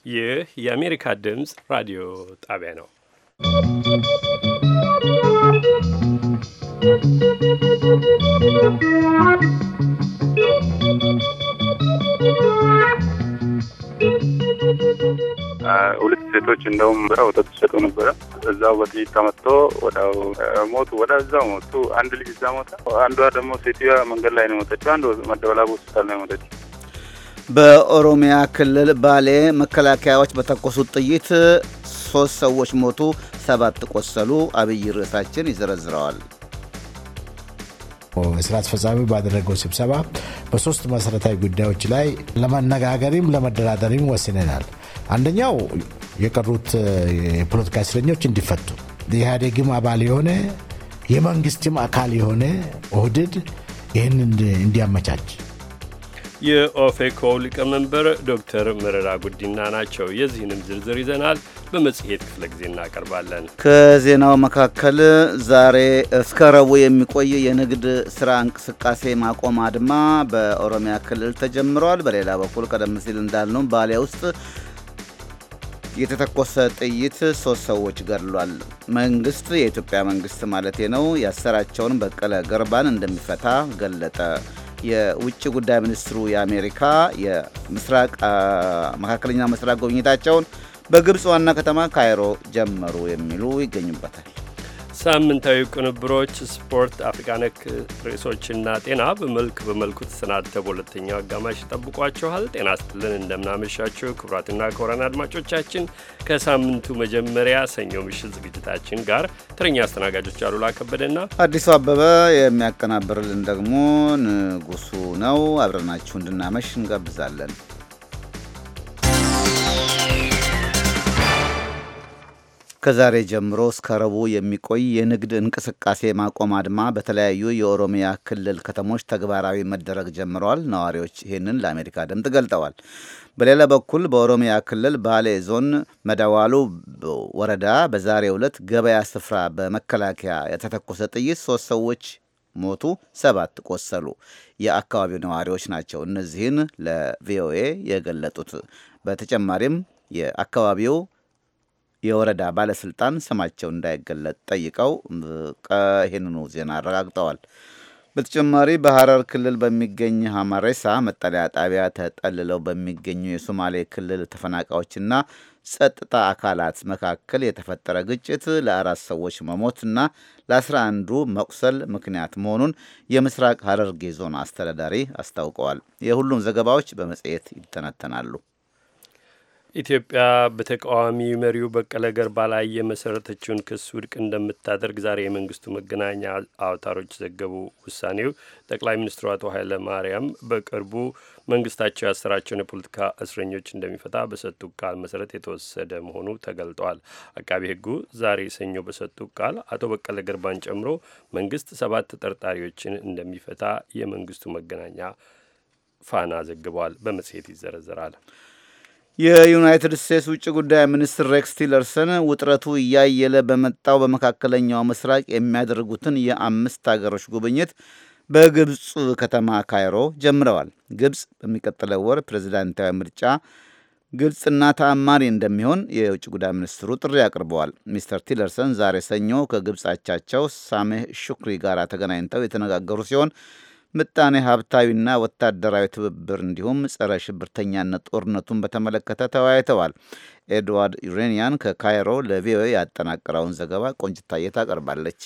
ይህ የአሜሪካ ድምፅ ራዲዮ ጣቢያ ነው። ሁለት ሴቶች እንደውም ወተት ሲሰጡ ነበረ። እዛው በጥይት ተመትቶ ወዲያው ሞቱ። ወዲያው ሞቱ። አንድ ልጅ እዛ ሞተ። አንዷ ደግሞ ሴትዮዋ መንገድ ላይ ነው የሞተችው። አንዱ መደበላቡ ሆስፒታል ነው የሞተችው። በኦሮሚያ ክልል ባሌ መከላከያዎች በተኮሱት ጥይት 3 ሰዎች ሞቱ፣ 7 ቆሰሉ። አብይ ርዕሳችን ይዘረዝረዋል። ስራ አስፈጻሚ ባደረገው ስብሰባ በሶስት መሰረታዊ ጉዳዮች ላይ ለመነጋገርም ለመደራደርም ወስነናል። አንደኛው የቀሩት የፖለቲካ እስረኞች እንዲፈቱ፣ የኢህአዴግም አባል የሆነ የመንግስትም አካል የሆነ ኦህዴድ ይህን እንዲያመቻች። የኦፌኮ ሊቀመንበር ዶክተር መረራ ጉዲና ናቸው። የዚህንም ዝርዝር ይዘናል፣ በመጽሔት ክፍለ ጊዜ እናቀርባለን። ከዜናው መካከል ዛሬ እስከ ረቡዕ የሚቆይ የንግድ ስራ እንቅስቃሴ ማቆም አድማ በኦሮሚያ ክልል ተጀምሯል። በሌላ በኩል ቀደም ሲል እንዳልነው ባሌ ውስጥ የተተኮሰ ጥይት 3 ሰዎች ገድሏል። መንግስት፣ የኢትዮጵያ መንግስት ማለቴ ነው፣ ያሰራቸውን በቀለ ገርባን እንደሚፈታ ገለጠ። የውጭ ጉዳይ ሚኒስትሩ የአሜሪካ መካከለኛ ምስራቅ ጉብኝታቸውን በግብፅ ዋና ከተማ ካይሮ ጀመሩ የሚሉ ይገኙበታል። ሳምንታዊ ቅንብሮች፣ ስፖርት፣ አፍሪካ ነክ ርዕሶችና ጤና በመልኩ ተሰናድተው በሁለተኛው አጋማሽ ይጠብቋችኋል። ጤና ስትልን እንደምናመሻችሁ ክቡራትና ክቡራን አድማጮቻችን ከሳምንቱ መጀመሪያ ሰኞ ምሽት ዝግጅታችን ጋር ተረኛ አስተናጋጆች አሉላ ከበደና አዲሱ አበበ፣ የሚያቀናብርልን ደግሞ ንጉሱ ነው። አብረናችሁ እንድናመሽ እንጋብዛለን። ከዛሬ ጀምሮ እስከ ረቡዕ የሚቆይ የንግድ እንቅስቃሴ ማቆም አድማ በተለያዩ የኦሮሚያ ክልል ከተሞች ተግባራዊ መደረግ ጀምረዋል። ነዋሪዎች ይህንን ለአሜሪካ ድምፅ ገልጠዋል። በሌላ በኩል በኦሮሚያ ክልል ባሌ ዞን መደዋሉ ወረዳ በዛሬው ዕለት ገበያ ስፍራ በመከላከያ የተተኮሰ ጥይት 3 ሰዎች ሞቱ፣ 7 ቆሰሉ። የአካባቢው ነዋሪዎች ናቸው እነዚህን ለቪኦኤ የገለጡት። በተጨማሪም የአካባቢው የወረዳ ባለስልጣን ስማቸው እንዳይገለጥ ጠይቀው ይህንኑ ዜና አረጋግጠዋል። በተጨማሪ በሐረር ክልል በሚገኝ ሀማሬሳ መጠለያ ጣቢያ ተጠልለው በሚገኙ የሶማሌ ክልል ተፈናቃዮችና ጸጥታ አካላት መካከል የተፈጠረ ግጭት ለ4 ሰዎች መሞትና ለ11 መቁሰል ምክንያት መሆኑን የምስራቅ ሐረርጌ ዞን አስተዳዳሪ አስታውቀዋል። የሁሉም ዘገባዎች በመጽሔት ይተነተናሉ። ኢትዮጵያ በተቃዋሚ መሪው በቀለ ገርባ ላይ የመሰረተችውን ክስ ውድቅ እንደምታደርግ ዛሬ የመንግስቱ መገናኛ አውታሮች ዘገቡ። ውሳኔው ጠቅላይ ሚኒስትሩ አቶ ኃይለ ማርያም በቅርቡ መንግስታቸው ያሰራቸውን የፖለቲካ እስረኞች እንደሚፈታ በሰጡት ቃል መሰረት የተወሰደ መሆኑ ተገልጧል። አቃቤ ሕጉ ዛሬ ሰኞ በሰጡት ቃል አቶ በቀለ ገርባን ጨምሮ መንግስት 7 ተጠርጣሪዎችን እንደሚፈታ የመንግስቱ መገናኛ ፋና ዘግቧል። በመጽሔት ይዘረዘራል። የዩናይትድ ስቴትስ ውጭ ጉዳይ ሚኒስትር ሬክስ ቲለርሰን ውጥረቱ እያየለ በመጣው በመካከለኛው ምስራቅ የሚያደርጉትን የ5 ሀገሮች ጉብኝት በግብፅ ከተማ ካይሮ ጀምረዋል። ግብፅ በሚቀጥለው ወር ፕሬዚዳንታዊ ምርጫ ግልጽና ተአማኒ እንደሚሆን የውጭ ጉዳይ ሚኒስትሩ ጥሪ አቅርበዋል። ሚስተር ቲለርሰን ዛሬ ሰኞ ከግብፅ አቻቸው ሳሜህ ሹክሪ ጋር ተገናኝተው የተነጋገሩ ሲሆን ምጣኔ ሀብታዊና ወታደራዊ ትብብር እንዲሁም ጸረ ሽብርተኛነት ጦርነቱን በተመለከተ ተወያይተዋል። ኤድዋርድ ዩሬኒያን ከካይሮ ለቪኦኤ ያጠናቀረውን ዘገባ ቆንጅታዬ ታቀርባለች።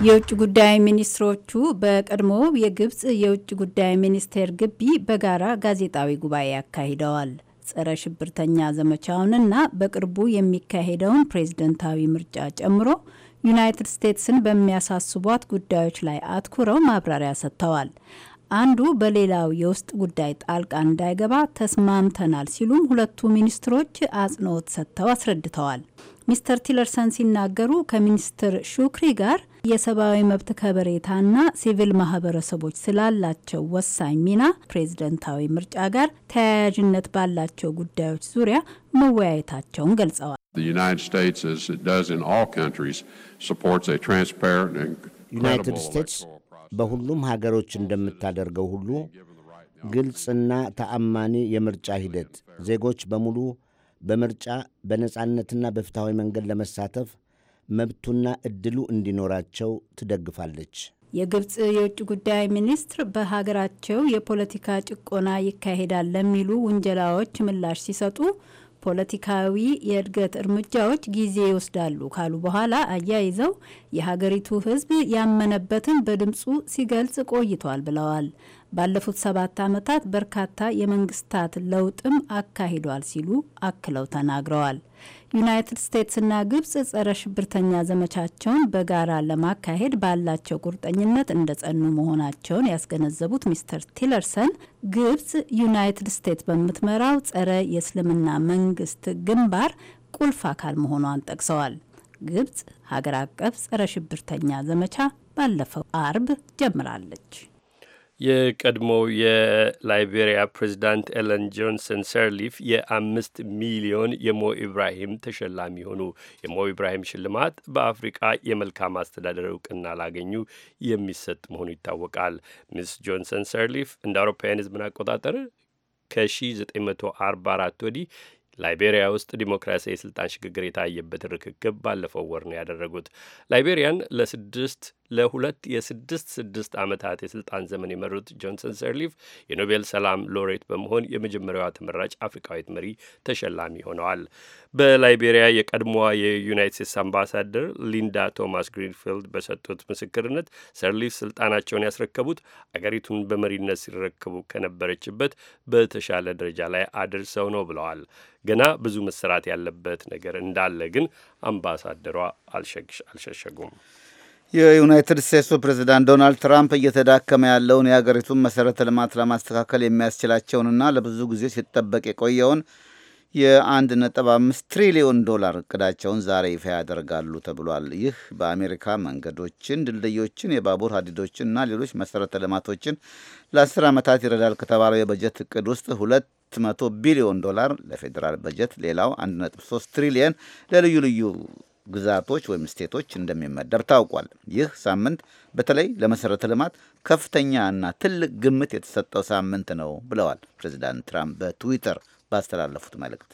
የውጭ ጉዳይ ሚኒስትሮቹ በቀድሞ የግብፅ የውጭ ጉዳይ ሚኒስቴር ግቢ በጋራ ጋዜጣዊ ጉባኤ አካሂደዋል። ጸረ ሽብርተኛ ዘመቻውንና በቅርቡ የሚካሄደውን ፕሬዝደንታዊ ምርጫ ጨምሮ ዩናይትድ ስቴትስን በሚያሳስቧት ጉዳዮች ላይ አትኩረው ማብራሪያ ሰጥተዋል። አንዱ በሌላው የውስጥ ጉዳይ ጣልቃ እንዳይገባ ተስማምተናል ሲሉም ሁለቱ ሚኒስትሮች አጽንኦት ሰጥተው አስረድተዋል። ሚስተር ቲለርሰን ሲናገሩ ከሚኒስትር ሹክሪ ጋር የሰብአዊ መብት ከበሬታና ሲቪል ማህበረሰቦች ስላላቸው ወሳኝ ሚና ፕሬዝደንታዊ ምርጫ ጋር ተያያዥነት ባላቸው ጉዳዮች ዙሪያ መወያየታቸውን ገልጸዋል። ዩናይትድ ስቴትስ በሁሉም ሀገሮች እንደምታደርገው ሁሉ ግልጽና ተአማኒ የምርጫ ሂደት ዜጎች በሙሉ በምርጫ በነጻነትና በፍትሐዊ መንገድ ለመሳተፍ መብቱና ዕድሉ እንዲኖራቸው ትደግፋለች። የግብጽ የውጭ ጉዳይ ሚኒስትር በሀገራቸው የፖለቲካ ጭቆና ይካሄዳል ለሚሉ ውንጀላዎች ምላሽ ሲሰጡ ፖለቲካዊ የእድገት እርምጃዎች ጊዜ ይወስዳሉ ካሉ በኋላ አያይዘው የሀገሪቱ ሕዝብ ያመነበትን በድምፁ ሲገልጽ ቆይቷል ብለዋል። ባለፉት 7 ዓመታት በርካታ የመንግስታት ለውጥም አካሂዷል ሲሉ አክለው ተናግረዋል። ዩናይትድ ስቴትስና ግብጽ ጸረ ሽብርተኛ ዘመቻቸውን በጋራ ለማካሄድ ባላቸው ቁርጠኝነት እንደጸኑ መሆናቸውን ያስገነዘቡት ሚስተር ቲለርሰን ግብጽ ዩናይትድ ስቴትስ በምትመራው ጸረ የእስልምና መንግስት ግንባር ቁልፍ አካል መሆኗን ጠቅሰዋል። ግብጽ ሀገር አቀፍ ጸረ ሽብርተኛ ዘመቻ ባለፈው አርብ ጀምራለች። የቀድሞው የላይቤሪያ ፕሬዚዳንት ኤለን ጆንሰን ሰርሊፍ የ5 ሚሊዮን የሞ ኢብራሂም ተሸላሚ ሆኑ። የሞ ኢብራሂም ሽልማት በአፍሪቃ የመልካም አስተዳደር እውቅና ላገኙ የሚሰጥ መሆኑ ይታወቃል። ሚስ ጆንሰን ሰርሊፍ እንደ አውሮፓውያን ሕዝብን አቆጣጠር ከ1944 ወዲህ ላይቤሪያ ውስጥ ዲሞክራሲያዊ የስልጣን ሽግግር የታየበትን ርክክብ ባለፈው ወር ነው ያደረጉት። ላይቤሪያን ለሁለት የ6 ዓመታት የስልጣን ዘመን የመሩት ጆንሰን ሰርሊፍ የኖቤል ሰላም ሎሬት በመሆን የመጀመሪያዋ ተመራጭ አፍሪካዊት መሪ ተሸላሚ ሆነዋል። በላይቤሪያ የቀድሞዋ የዩናይትድ ስቴትስ አምባሳደር ሊንዳ ቶማስ ግሪንፊልድ በሰጡት ምስክርነት ሰርሊፍ ስልጣናቸውን ያስረከቡት አገሪቱን በመሪነት ሲረከቡ ከነበረችበት በተሻለ ደረጃ ላይ አድርሰው ነው ብለዋል። ገና ብዙ መሰራት ያለበት ነገር እንዳለ ግን አምባሳደሯ አልሸሸጉም። የዩናይትድ ስቴትሱ ፕሬዚዳንት ዶናልድ ትራምፕ እየተዳከመ ያለውን የሀገሪቱን መሰረተ ልማት ለማስተካከል የሚያስችላቸውንና ለብዙ ጊዜ ሲጠበቅ የቆየውን የ1.5 ትሪሊዮን ዶላር እቅዳቸውን ዛሬ ይፋ ያደርጋሉ ተብሏል። ይህ በአሜሪካ መንገዶችን፣ ድልድዮችን፣ የባቡር ሀዲዶችንና ሌሎች መሰረተ ልማቶችን ለ10 ዓመታት ይረዳል ከተባለው የበጀት እቅድ ውስጥ 200 ቢሊዮን ዶላር ለፌዴራል በጀት፣ ሌላው 1.3 ትሪሊየን ለልዩ ልዩ ግዛቶች ወይም ስቴቶች እንደሚመደብ ታውቋል። ይህ ሳምንት በተለይ ለመሰረተ ልማት ከፍተኛ እና ትልቅ ግምት የተሰጠው ሳምንት ነው ብለዋል ፕሬዚዳንት ትራምፕ በትዊተር ባስተላለፉት መልእክት።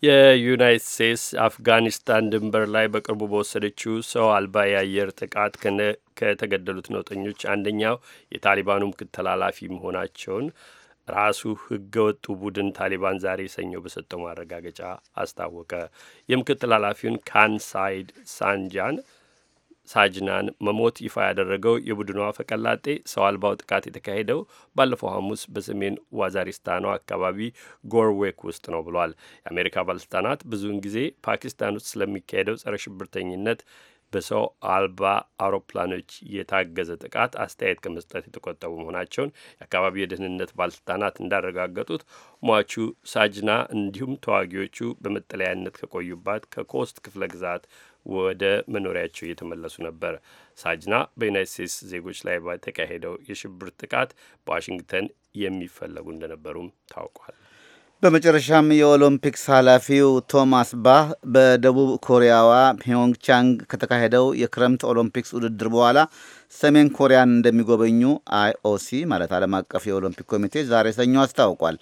የዩናይትድ ስቴትስ አፍጋኒስታን ድንበር ላይ በቅርቡ በወሰደችው ሰው አልባ የአየር ጥቃት ከተገደሉት ነውጠኞች አንደኛው የታሊባኑ ምክትል ተላላፊ መሆናቸውን ራሱ ህገወጡ ቡድን ታሊባን ዛሬ ሰኞ በሰጠው ማረጋገጫ አስታወቀ። የምክትል ኃላፊውን ካንሳይድ ሳጅናን መሞት ይፋ ያደረገው የቡድኑ አፈቀላጤ ሰው አልባው ጥቃት የተካሄደው ባለፈው ሐሙስ በሰሜን ዋዛሪስታኗ አካባቢ ጎርዌክ ውስጥ ነው ብሏል። የአሜሪካ ባለስልጣናት ብዙውን ጊዜ ፓኪስታን ውስጥ ስለሚካሄደው ጸረ ሽብርተኝነት በሰው አልባ አውሮፕላኖች የታገዘ ጥቃት አስተያየት ከመስጠት የተቆጠቡ መሆናቸውን የአካባቢ የደህንነት ባለስልጣናት እንዳረጋገጡት ሟቹ ሳጅና እንዲሁም ተዋጊዎቹ በመጠለያነት ከቆዩባት ከኮስት ክፍለ ግዛት ወደ መኖሪያቸው እየተመለሱ ነበር። ሳጅና በዩናይትድ ስቴትስ ዜጎች ላይ በተካሄደው የሽብር ጥቃት በዋሽንግተን የሚፈለጉ እንደነበሩም ታውቋል። በመጨረሻም የኦሎምፒክስ ኃላፊው ቶማስ ባህ በደቡብ ኮሪያዋ ፒዮንግቻንግ ከተካሄደው የክረምት ኦሎምፒክስ ውድድር በኋላ ሰሜን ኮሪያን እንደሚጎበኙ አይኦሲ ማለት ዓለም አቀፍ የኦሎምፒክ ኮሚቴ ዛሬ ሰኞ አስታውቋል።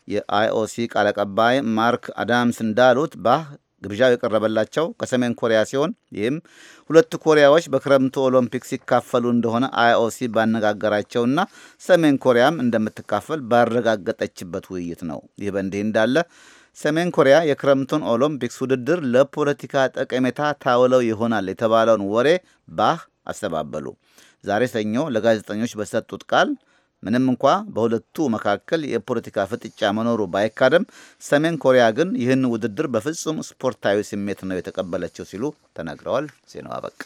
የአይኦሲ ቃል አቀባይ ማርክ አዳምስ እንዳሉት ባህ ግብዣው የቀረበላቸው ከሰሜን ኮሪያ ሲሆን ይህም ሁለቱ ኮሪያዎች በክረምቱ ኦሎምፒክ ሲካፈሉ እንደሆነ አይኦሲ ባነጋገራቸውና ሰሜን ኮሪያም እንደምትካፈል ባረጋገጠችበት ውይይት ነው። ይህ በእንዲህ እንዳለ ሰሜን ኮሪያ የክረምቱን ኦሎምፒክስ ውድድር ለፖለቲካ ጠቀሜታ ታውለው ይሆናል የተባለውን ወሬ ባህ አስተባበሉ። ዛሬ ሰኞ ለጋዜጠኞች በሰጡት ቃል ምንም እንኳ በሁለቱ መካከል የፖለቲካ ፍጥጫ መኖሩ ባይካደም ሰሜን ኮሪያ ግን ይህን ውድድር በፍጹም ስፖርታዊ ስሜት ነው የተቀበለችው ሲሉ ተናግረዋል። ዜናው አበቃ።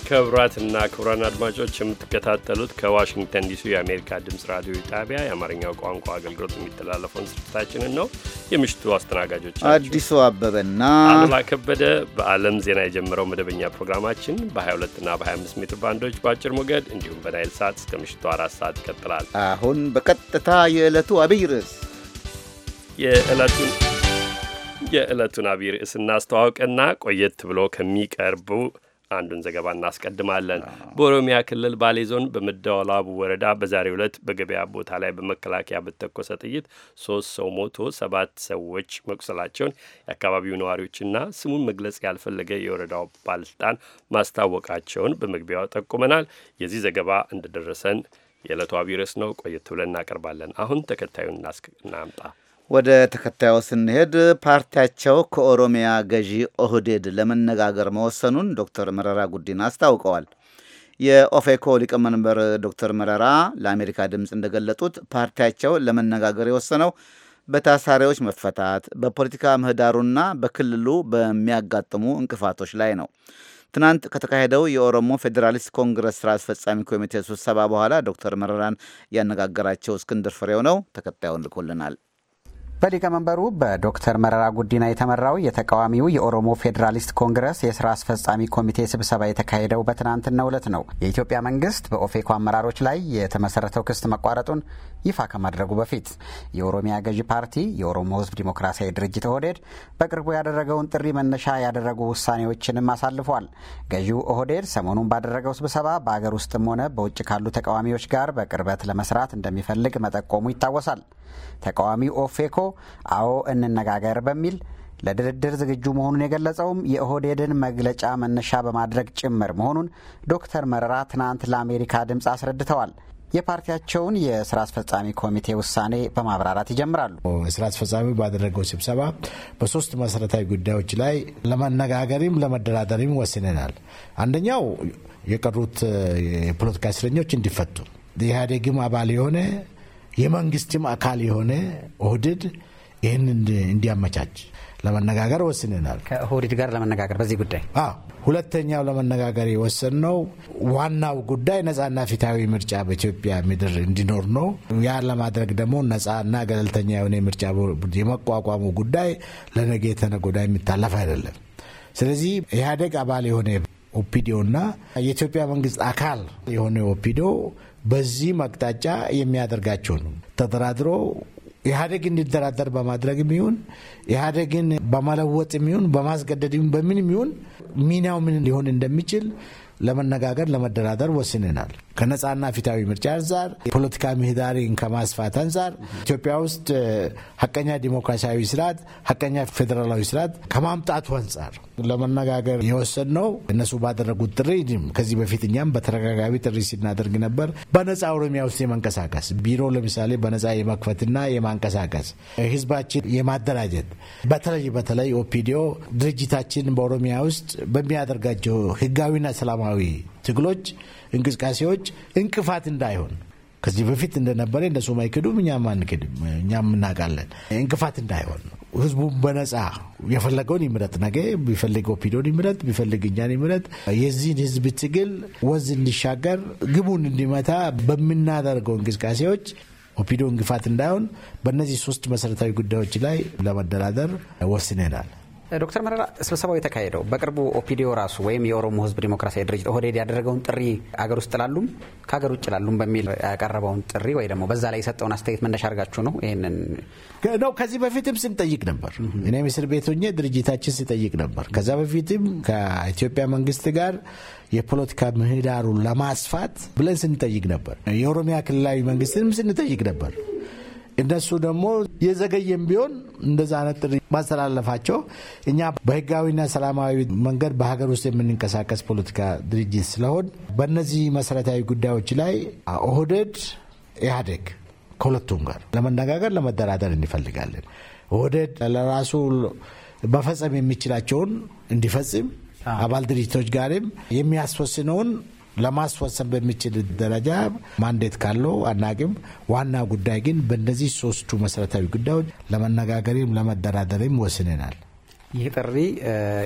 ክቡራትና ክቡራን አድማጮች የምትከታተሉት ከዋሽንግተን ዲሲ የአሜሪካ ድምፅ ራዲዮ ጣቢያ የአማርኛው ቋንቋ አገልግሎት የሚተላለፈውን ስርጭታችንን ነው። የምሽቱ አስተናጋጆች አዲሱ አበበና አሉላ ከበደ። በዓለም ዜና የጀመረው መደበኛ ፕሮግራማችን በ22ና በ25 ሜትር ባንዶች በአጭር ሞገድ እንዲሁም በናይል ሳት እስከ ምሽቱ 4 ሰዓት ይቀጥላል። አሁን በቀጥታ የዕለቱ አብይ ርዕስ የዕለቱን አብይ ርዕስ እናስተዋውቅና ቆየት ብሎ ከሚቀርቡ አንዱን ዘገባ እናስቀድማለን። በኦሮሚያ ክልል ባሌ ዞን በመደወላቡ ወረዳ በዛሬው ዕለት በገበያ ቦታ ላይ በመከላከያ በተኮሰ ጥይት 3 ሰው ሞቶ 7 ሰዎች መቁሰላቸውን የአካባቢው ነዋሪዎችና ስሙን መግለጽ ያልፈለገ የወረዳው ባለስልጣን ማስታወቃቸውን በመግቢያው ጠቁመናል። የዚህ ዘገባ እንደደረሰን የዕለቱ አብይ ርዕስ ነው። ቆየት ብለን እናቀርባለን። አሁን ተከታዩን እናምጣ። ወደ ተከታዩ ስንሄድ ፓርቲያቸው ከኦሮሚያ ገዢ ኦህዴድ ለመነጋገር መወሰኑን ዶክተር መረራ ጉዲና አስታውቀዋል። የኦፌኮ ሊቀመንበር ዶክተር መረራ ለአሜሪካ ድምፅ እንደገለጡት ፓርቲያቸው ለመነጋገር የወሰነው በታሳሪዎች መፈታት፣ በፖለቲካ ምህዳሩና በክልሉ በሚያጋጥሙ እንቅፋቶች ላይ ነው። ትናንት ከተካሄደው የኦሮሞ ፌዴራሊስት ኮንግረስ ስራ አስፈጻሚ ኮሚቴ ስብሰባ በኋላ ዶክተር መረራን ያነጋገራቸው እስክንድር ፍሬው ነው። ተከታዩን ልኮልናል። በሊቀመንበሩ በዶክተር መረራ ጉዲና የተመራው የተቃዋሚው የኦሮሞ ፌዴራሊስት ኮንግረስ የስራ አስፈጻሚ ኮሚቴ ስብሰባ የተካሄደው በትናንትናው ዕለት ነው። የኢትዮጵያ መንግስት በኦፌኮ አመራሮች ላይ የተመሰረተው ክስ መቋረጡን ይፋ ከማድረጉ በፊት የኦሮሚያ ገዢ ፓርቲ የኦሮሞ ሕዝብ ዲሞክራሲያዊ ድርጅት ኦህዴድ በቅርቡ ያደረገውን ጥሪ መነሻ ያደረጉ ውሳኔዎችንም አሳልፏል። ገዢው ኦህዴድ ሰሞኑን ባደረገው ስብሰባ በአገር ውስጥም ሆነ በውጭ ካሉ ተቃዋሚዎች ጋር በቅርበት ለመስራት እንደሚፈልግ መጠቆሙ ይታወሳል። ተቃዋሚው ኦፌኮ አዎ እንነጋገር በሚል ለድርድር ዝግጁ መሆኑን የገለጸውም የኦህዴድን መግለጫ መነሻ በማድረግ ጭምር መሆኑን ዶክተር መረራ ትናንት ለአሜሪካ ድምፅ አስረድተዋል። የፓርቲያቸውን የስራ አስፈጻሚ ኮሚቴ ውሳኔ በማብራራት ይጀምራሉ። የስራ አስፈጻሚው ባደረገው ስብሰባ በሶስት መሰረታዊ ጉዳዮች ላይ ለመነጋገርም ለመደራደርም ወስነናል። አንደኛው የቀሩት የፖለቲካ እስረኞች እንዲፈቱ፣ የኢህአዴግም አባል የሆነ የመንግስትም አካል የሆነ ኦህዴድ ይህን እንዲያመቻች ለመነጋገር ወስነናል። ከኦህዴድ ጋር ለመነጋገር በዚህ ጉዳይ ሁለተኛው ለመነጋገር የወሰንነው ዋናው ጉዳይ ነጻና ፊታዊ ምርጫ በኢትዮጵያ ምድር እንዲኖር ነው። ያ ለማድረግ ደግሞ ነጻና ገለልተኛ የሆነ ምርጫ የመቋቋሙ ጉዳይ ለነገ ተነገ ወዲያ የሚታለፍ አይደለም። ስለዚህ ኢህአዴግ አባል የሆነ ኦፒዲዮና የኢትዮጵያ መንግስት አካል የሆነ ኦፒዲዮ በዚህ መቅጣጫ የሚያደርጋቸው ነው። ተደራድሮ ኢህአዴግ እንዲደራደር በማድረግ የሚሆን ኢህአዴግን በመለወጥ የሚሆን በማስገደድ በምን የሚሆን ሚናው ምን ሊሆን እንደሚችል ለመነጋገር ለመደራደር ወስነናል። ከነጻና ፊታዊ ምርጫ አንጻር፣ የፖለቲካ ምህዳርን ከማስፋት አንጻር፣ ኢትዮጵያ ውስጥ ሀቀኛ ዲሞክራሲያዊ ስርዓት፣ ሀቀኛ ፌዴራላዊ ስርዓት ከማምጣቱ አንጻር ለመነጋገር የወሰንነው እነሱ ባደረጉት ጥሪ፣ ከዚህ በፊት እኛም በተደጋጋሚ ጥሪ ሲናደርግ ነበር። በነጻ ኦሮሚያ ውስጥ የመንቀሳቀስ ቢሮ ለምሳሌ በነጻ የመክፈትና የማንቀሳቀስ ህዝባችን የማደራጀት በተለይ ኦፒዲዮ ድርጅታችን በኦሮሚያ ውስጥ በሚያደርጋቸው ህጋዊና ሰላማዊ ትግሎች እንቅስቃሴዎች እንቅፋት እንዳይሆን ከዚህ በፊት እንደነበረ እነሱ ማይክዱም እኛም አንክድም፣ እኛም እናውቃለን። እንቅፋት እንዳይሆን ህዝቡ በነጻ የፈለገውን ይምረጥ፣ ነገ ቢፈልግ ኦፒዲዮን ይምረጥ፣ ቢፈልግ እኛን ይምረጥ። የዚህን ህዝብ ትግል ወዝ እንዲሻገር ግቡን እንዲመታ በምናደርገው እንቅስቃሴዎች ኦፒዲዮ እንቅፋት እንዳይሆን በእነዚህ ሶስት መሰረታዊ ጉዳዮች ላይ ለመደራደር ወስነናል። ዶክተር መረራ ስብሰባው የተካሄደው በቅርቡ ኦፒዲዮ ራሱ ወይም የኦሮሞ ህዝብ ዲሞክራሲያዊ ድርጅት ኦህዴድ ያደረገውን ጥሪ አገር ውስጥ ላሉም ከሀገር ውጭ ላሉም በሚል ያቀረበውን ጥሪ ወይ ደግሞ በዛ ላይ የሰጠውን አስተያየት መነሻ አድርጋችሁ ነው ይሄንን ነው? ከዚህ በፊትም ስንጠይቅ ነበር። እኔም እስር ቤት ሆኜ ድርጅታችን ሲጠይቅ ነበር። ከዛ በፊትም ከኢትዮጵያ መንግስት ጋር የፖለቲካ ምህዳሩን ለማስፋት ብለን ስንጠይቅ ነበር። የኦሮሚያ ክልላዊ መንግስትንም ስንጠይቅ ነበር። እነሱ ደግሞ የዘገየም ቢሆን እንደዛ አይነት ጥሪ ማስተላለፋቸው እኛ በህጋዊና ሰላማዊ መንገድ በሀገር ውስጥ የምንንቀሳቀስ ፖለቲካ ድርጅት ስለሆን በእነዚህ መሰረታዊ ጉዳዮች ላይ ኦህዴድ፣ ኢህአዴግ ከሁለቱም ጋር ለመነጋገር ለመደራደር እንፈልጋለን። ኦህዴድ ለራሱ መፈጸም የሚችላቸውን እንዲፈጽም አባል ድርጅቶች ጋርም የሚያስወስነውን ለማስወሰን በሚችል ደረጃ ማንዴት ካለው አናቅም። ዋና ጉዳይ ግን በእነዚህ ሶስቱ መሰረታዊ ጉዳዮች ለመነጋገርም ለመደራደርም ወስነናል። ይህ ጥሪ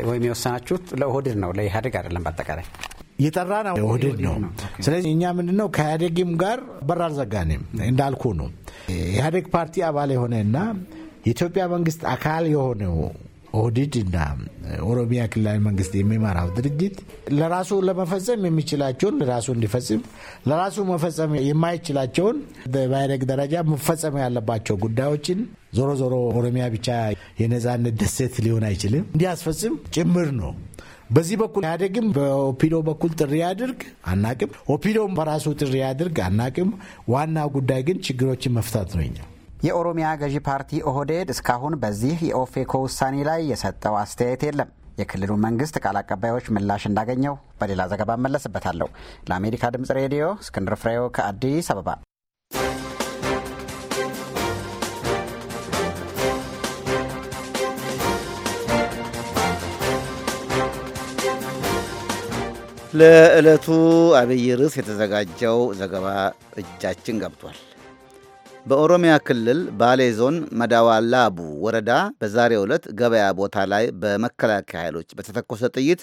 ወይም የወሰናችሁት ለኦህዴድ ነው፣ ለኢህአዴግ አይደለም። በአጠቃላይ የጠራ ነው ኦህዴድ ነው። ስለዚህ እኛ ምንድነው ከኢህአዴግም ጋር በር አልዘጋንም። እንዳልኩ ነው ኢህአዴግ ፓርቲ አባል የሆነና የኢትዮጵያ መንግስት አካል የሆነው ኦህዴድ እና ኦሮሚያ ክልላዊ መንግስት የሚመራው ድርጅት ለራሱ ለመፈጸም የሚችላቸውን ለራሱ እንዲፈጽም፣ ለራሱ መፈጸም የማይችላቸውን በኢህአዴግ ደረጃ መፈጸም ያለባቸው ጉዳዮችን ዞሮ ዞሮ ኦሮሚያ ብቻ የነጻነት ደሴት ሊሆን አይችልም እንዲያስፈጽም ጭምር ነው። በዚህ በኩል ያደግም በኦፒዶ በኩል ጥሪ ያድርግ አናቅም፣ ኦፒዶም በራሱ ጥሪ ያድርግ አናቅም። ዋና ጉዳይ ግን ችግሮችን መፍታት ነው። የኦሮሚያ ገዢ ፓርቲ ኦህዴድ እስካሁን በዚህ የኦፌኮ ውሳኔ ላይ የሰጠው አስተያየት የለም። የክልሉ መንግስት ቃል አቀባዮች ምላሽ እንዳገኘው በሌላ ዘገባ መለስበታለሁ። ለአሜሪካ ድምጽ ሬዲዮ እስክንድር ፍሬው ከአዲስ አበባ። ለዕለቱ አብይ ርዕስ የተዘጋጀው ዘገባ እጃችን ገብቷል። በኦሮሚያ ክልል ባሌ ዞን መዳዋላቡ ወረዳ በዛሬው ዕለት ገበያ ቦታ ላይ በመከላከያ ኃይሎች በተተኮሰ ጥይት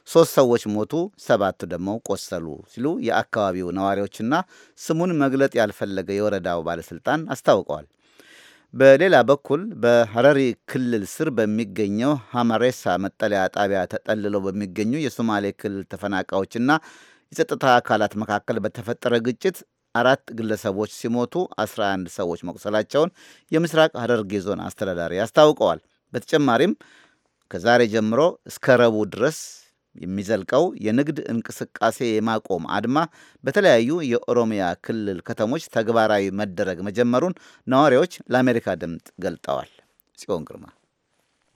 3 ሰዎች ሞቱ፣ 7 ደግሞ ቆሰሉ ሲሉ የአካባቢው ነዋሪዎችና ስሙን መግለጥ ያልፈለገ የወረዳው ባለስልጣን አስታውቀዋል። በሌላ በኩል በሐረሪ ክልል ስር በሚገኘው ሐማሬሳ መጠለያ ጣቢያ ተጠልለው በሚገኙ የሶማሌ ክልል ተፈናቃዮችና የጸጥታ አካላት መካከል በተፈጠረ ግጭት 4 ግለሰቦች ሲሞቱ 11 ሰዎች መቁሰላቸውን የምስራቅ ሐረርጌ ዞን አስተዳዳሪ አስታውቀዋል። በተጨማሪም ከዛሬ ጀምሮ እስከ ረቡዕ ድረስ የሚዘልቀው የንግድ እንቅስቃሴ የማቆም አድማ በተለያዩ የኦሮሚያ ክልል ከተሞች ተግባራዊ መደረግ መጀመሩን ነዋሪዎች ለአሜሪካ ድምፅ ገልጠዋል። ጽዮን ግርማ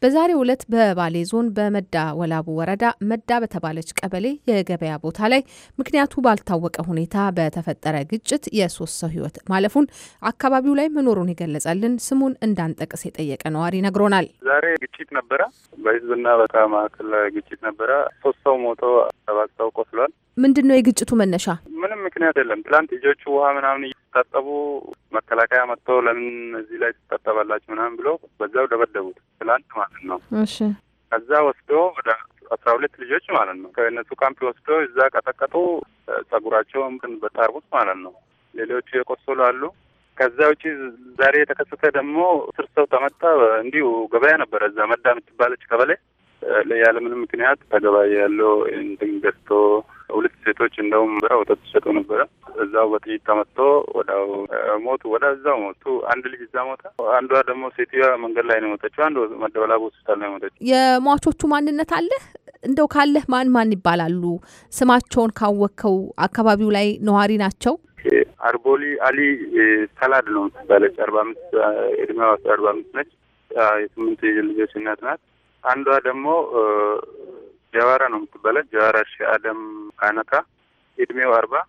በዛሬው ዕለት በባሌ ዞን በመዳ ወላቡ ወረዳ መዳ በተባለች ቀበሌ የገበያ ቦታ ላይ ምክንያቱ ባልታወቀ ሁኔታ በተፈጠረ ግጭት የ3 ሰው ሕይወት ማለፉን አካባቢው ላይ መኖሩን የገለጸልን ስሙን እንዳንጠቅስ የጠየቀ ነዋሪ ነግሮናል። ዛሬ ግጭት ነበረ፣ በህዝብና በመካከል ግጭት ነበረ። 3 ሰው ሞቶ 7 ሰው ቆስሏል። ምንድነው የግጭቱ መነሻ? ምንም ምክንያት የለም። ትላንት ልጆቹ ውሃ ምናምን እየታጠቡ መከላከያ መጥቶ ለምን እዚህ ላይ ትታጠባላችሁ ምናምን ብሎ በዛው ደበደቡት ትላንት ማለት ነው። እሺ ከዛ ወስዶ ወደ 12 ልጆች ማለት ነው ከእነሱ ካምፕ ወስዶ እዛ ቀጠቀጡ። ጸጉራቸውን በጣርቡት ማለት ነው። ሌሎቹ የቆሰሉ አሉ። ከዛ ውጪ ዛሬ የተከሰተ ደግሞ 10 ሰው ተመታ። እንዲሁ ገበያ ነበረ እዛ መዳ የምትባለች ቀበሌ ያለምንም ምክንያት ተገባይ ያለው እንትን ገዝቶ 2 ሴቶች እንደውም ወተት ሲሸጡ ነበረ። እዛው በጥይት ተመቶ ወዳው ሞቱ። ወዳው ሞቱ። አንድ ልጅ እዛ ሞታ። አንዷ ደግሞ ሴትዮዋ መንገድ ላይ ነው ሞተችው። አንዱ መደበላቡ ሆስፒታል ነው ሞተችው። የሟቾቹ ማንነት አለ እንደው ካለህ ማን ይባላሉ? ስማቸውን ካወቅከው አካባቢው ላይ ነዋሪ ናቸው? አርቦሊ አሊ ሰላድ ነው ባለች 45 እድሜዋ 45 ነች። የ8 ልጆች እናት ናት። አንዷ ደግሞ ጀዋራ ነው የምትባለው። ጀዋራ ሺአደም ካነካ እድሜው 40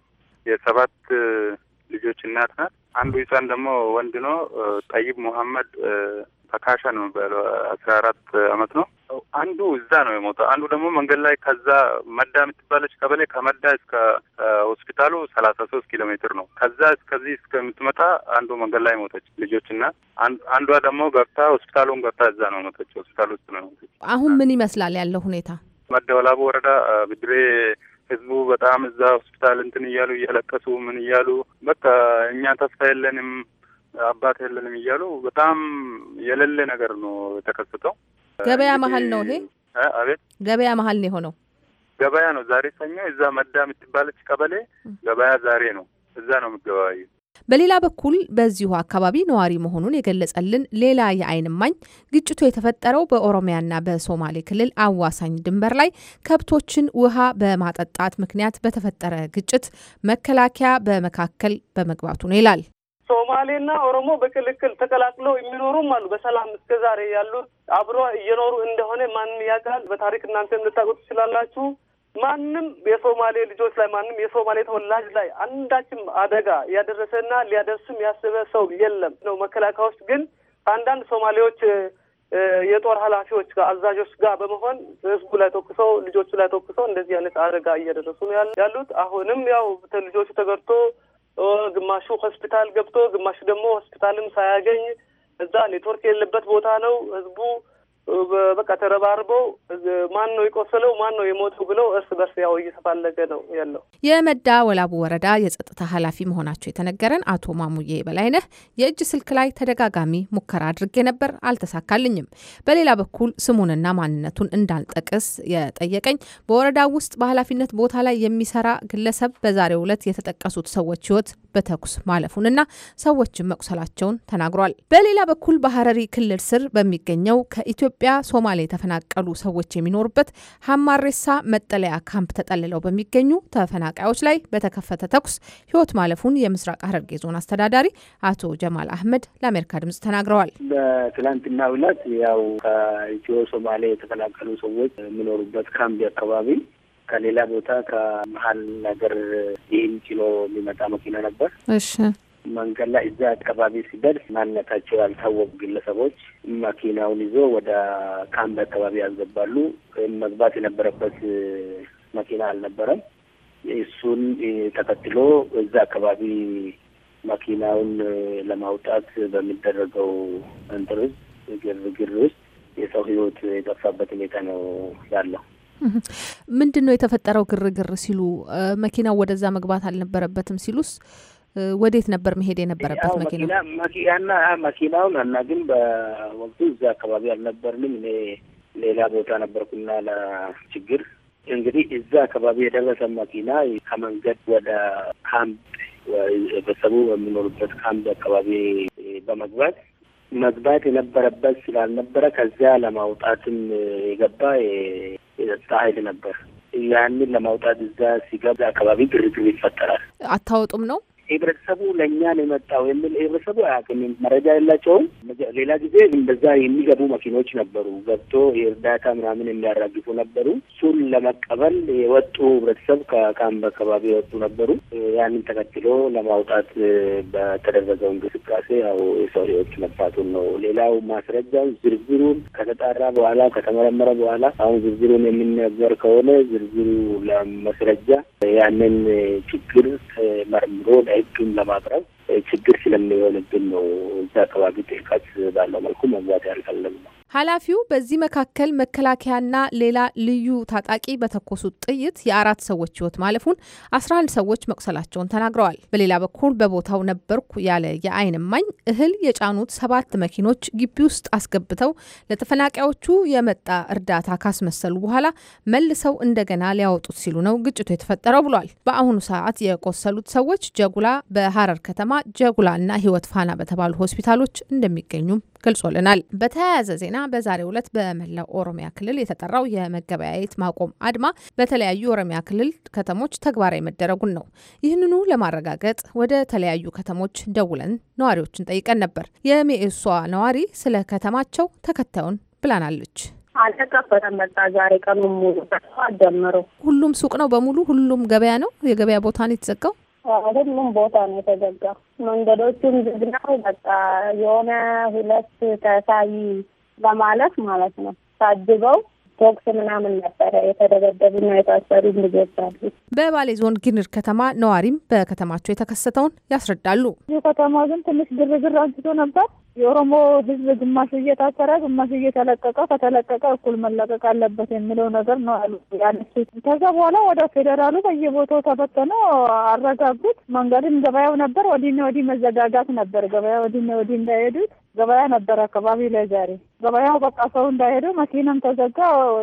የ7 ልጆች እናት ናት። አንዱ ህፃን ደግሞ ወንድ ነው። ጠይብ መሐመድ ተካሻ ነው የሚባለው 14 አመት ነው። አንዱ እዛ ነው የሞተው። አንዱ ደግሞ መንገድ ላይ ከዛ መዳ የምትባለች ቀበሌ ከመዳ እስከ ሆስፒታሉ 33 ኪሎ ሜትር ነው። ከዛ እስከዚህ እስከምትመጣ አንዱ መንገድ ላይ ሞተች ልጆችና አንዷ ደግሞ ገብታ ሆስፒታሉን ገብታ እዛ ነው ሞተች። ሆስፒታል ውስጥ ነው ሞተች። አሁን ምን ይመስላል ያለው ሁኔታ? መዳ ወላቡ ወረዳ ብድሬ ህዝቡ በጣም እዛ ሆስፒታል እንትን እያሉ እያለቀሱ ምን እያሉ በቃ እኛ ተስፋ የለንም አባት የለንም እያሉ በጣም የሌለ ነገር ነው የተከሰተው። ገበያ መሀል ነው ይሄ? አቤት፣ ገበያ መሀል ነው የሆነው። ገበያ ነው ዛሬ ሰኞ። እዛ መዳ የምትባለች ቀበሌ ገበያ ዛሬ ነው። እዛ ነው የምትገባዩ። በሌላ በኩል በዚሁ አካባቢ ነዋሪ መሆኑን የገለጸልን ሌላ የዓይን እማኝ ግጭቱ የተፈጠረው በኦሮሚያና በሶማሌ ክልል አዋሳኝ ድንበር ላይ ከብቶችን ውሃ በማጠጣት ምክንያት በተፈጠረ ግጭት መከላከያ በመካከል በመግባቱ ነው ይላል። ሶማሌና ኦሮሞ በክልክል ተቀላቅለው የሚኖሩም አሉ። በሰላም እስከዛሬ ያሉት አብሮ እየኖሩ እንደሆነ ማንም ያውቃል። በታሪክ እናንተ ልታውቁት ትችላላችሁ። ማንም የሶማሌ ልጆች ላይ ማንም የሶማሌ ተወላጅ ላይ አንዳችም አደጋ ያደረሰና ሊያደርስም ያሰበ ሰው የለም ነው። መከላከያዎች ግን አንዳንድ ሶማሌዎች የጦር ኃላፊዎች ጋር አዛዦች ጋር በመሆን ህዝቡ ላይ ተኩሰው ልጆቹ ላይ ተኩሰው እንደዚህ አይነት አደጋ እያደረሱ ነው ያሉት። አሁንም ያው ልጆቹ ተገርቶ ግማሹ ሆስፒታል ገብቶ ግማሹ ደግሞ ሆስፒታልም ሳያገኝ እዛ ኔትወርክ የሌለበት ቦታ ነው። ህዝቡ በቃ ተረባርበው ማን ነው የቆሰለው ማን ነው የሞተው ብለው እርስ በርስ ያው እየተፋለገ ነው ያለው። የመዳ ወላቡ ወረዳ የጸጥታ ኃላፊ መሆናቸው የተነገረን አቶ ማሙዬ በላይነህ የእጅ ስልክ ላይ ተደጋጋሚ ሙከራ አድርጌ ነበር፣ አልተሳካልኝም። በሌላ በኩል ስሙንና ማንነቱን እንዳልጠቅስ የጠየቀኝ በወረዳው ውስጥ በኃላፊነት ቦታ ላይ የሚሰራ ግለሰብ በዛሬው ዕለት የተጠቀሱት ሰዎች ህይወት በተኩስ ማለፉንና ሰዎችን መቁሰላቸውን ተናግሯል። በሌላ በኩል በሐረሪ ክልል ስር በሚገኘው ከኢትዮጵያ ሶማሌ የተፈናቀሉ ሰዎች የሚኖሩበት ሀማሬሳ መጠለያ ካምፕ ተጠልለው በሚገኙ ተፈናቃዮች ላይ በተከፈተ ተኩስ ህይወት ማለፉን የምስራቅ ሐረርጌ ዞን አስተዳዳሪ አቶ ጀማል አህመድ ለአሜሪካ ድምጽ ተናግረዋል። በትላንትናው ዕለት ያው ከኢትዮ ሶማሌ የተፈናቀሉ ሰዎች የሚኖሩበት ካምፕ አካባቢ ከሌላ ቦታ ከመሀል ነገር ይህን ጭኖ የሚመጣ መኪና ነበር። እሺ መንገድ ላይ እዛ አካባቢ ሲደርስ ማንነታቸው ያልታወቁ ግለሰቦች መኪናውን ይዞ ወደ ካምፕ አካባቢ ያስገባሉ። መግባት የነበረበት መኪና አልነበረም። እሱን ተከትሎ እዛ አካባቢ መኪናውን ለማውጣት በሚደረገው እንጥርዝ ግርግር ውስጥ የሰው ህይወት የጠፋበት ሁኔታ ነው ያለው። ምንድን ነው የተፈጠረው ግርግር ሲሉ መኪናው ወደዛ መግባት አልነበረበትም ሲሉስ ወዴት ነበር መሄድ የነበረበት መኪናውን እና ግን በወቅቱ እዛ አካባቢ አልነበርንም። እኔ ሌላ ቦታ ነበርኩና ለችግር እንግዲህ እዛ አካባቢ የደረሰ መኪና ከመንገድ ወደ ካምፕ ቤተሰቡ በሚኖሩበት ካምፕ አካባቢ መግባት የነበረበት ስላልነበረ ከዚያ ለማውጣትም የገባ የጸጥታ ኃይል ነበር። ያንን ለማውጣት እዛ ሲገባ አካባቢ ግርግር ይፈጠራል። አታወጡም ነው ህብረተሰቡ ለእኛ ነው የመጣው የሚል ህብረተሰቡ አያውቅም፣ መረጃ የላቸውም። ሌላ ጊዜ እንደዛ የሚገቡ መኪኖች ነበሩ፣ ገብቶ የእርዳታ ምናምን የሚያራግፉ ነበሩ። እሱን ለመቀበል የወጡ ህብረተሰብ ከካምፕ አካባቢ የወጡ ነበሩ። ያንን ተከትሎ ለማውጣት በተደረገው እንቅስቃሴ ያው የሰው ህይወት መጥፋቱን ነው። ሌላው ማስረጃውን ዝርዝሩን ከተጣራ በኋላ ከተመረመረ በኋላ አሁን ዝርዝሩን የሚነገር ከሆነ ዝርዝሩ ለማስረጃ ያንን ችግር መርምሮ ለህግም ለማቅረብ ችግር ስለሚሆንብን ነው እዛ አካባቢ ጥልቀት ባለው መልኩ መግባት ያልፈለግነው። ኃላፊው በዚህ መካከል መከላከያና ሌላ ልዩ ታጣቂ በተኮሱት ጥይት የ4 ሰዎች ህይወት ማለፉን 11 ሰዎች መቁሰላቸውን ተናግረዋል። በሌላ በኩል በቦታው ነበርኩ ያለ የዓይን እማኝ እህል የጫኑት 7 መኪኖች ግቢ ውስጥ አስገብተው ለተፈናቃዮቹ የመጣ እርዳታ ካስመሰሉ በኋላ መልሰው እንደገና ሊያወጡት ሲሉ ነው ግጭቱ የተፈጠረው ብሏል። በአሁኑ ሰዓት የቆሰሉት ሰዎች ጀጉላ በሐረር ከተማ ጀጉላና ህይወት ፋና በተባሉ ሆስፒታሎች እንደሚገኙም ገልጾልናል። በተያያዘ ዜና በዛሬው ዕለት በመላው ኦሮሚያ ክልል የተጠራው የመገበያየት ማቆም አድማ በተለያዩ ኦሮሚያ ክልል ከተሞች ተግባራዊ መደረጉን ነው። ይህንኑ ለማረጋገጥ ወደ ተለያዩ ከተሞች ደውለን ነዋሪዎችን ጠይቀን ነበር። የሜኤሷ ነዋሪ ስለ ከተማቸው ተከታዩን ብላናለች። አልተከፈተም። በቃ ዛሬ ቀኑን ሙሉ ጀምሮ ሁሉም ሱቅ ነው በሙሉ ሁሉም ገበያ ነው። የገበያ ቦታ ነው የተዘጋው። ሁሉም ቦታ ነው የተዘጋው። መንገዶቹም ዝግ ነው። በቃ የሆነ 2 ተሳይ ለማለት ማለት ነው ታጅበው ቶክስ ምናምን ነበረ የተደበደቡና የታሰሩ ልጆች አሉ። በባሌ ዞን ጊንር ከተማ ነዋሪም በከተማቸው የተከሰተውን ያስረዳሉ። ከተማ ግን ትንሽ ግርግር አንስቶ ነበር። የኦሮሞ ሕዝብ ግማሽ እየታሰረ ግማሽ እየተለቀቀ ከተለቀቀ እኩል መለቀቅ አለበት የሚለው ነገር ነው አሉ ያነሱት። ከዛ በኋላ ወደ ፌዴራሉ በየቦታው ተበተነ፣ አረጋጉት። መንገድም ገበያው ነበር፣ ወዲና ወዲህ መዘጋጋት ነበር። ገበያ ወዲና ወዲህ እንዳይሄዱት ገበያ ነበር አካባቢ ላይ ዛሬ ገበያው በቃ ሰው እንዳይሄዱ መኪናም ተዘጋ።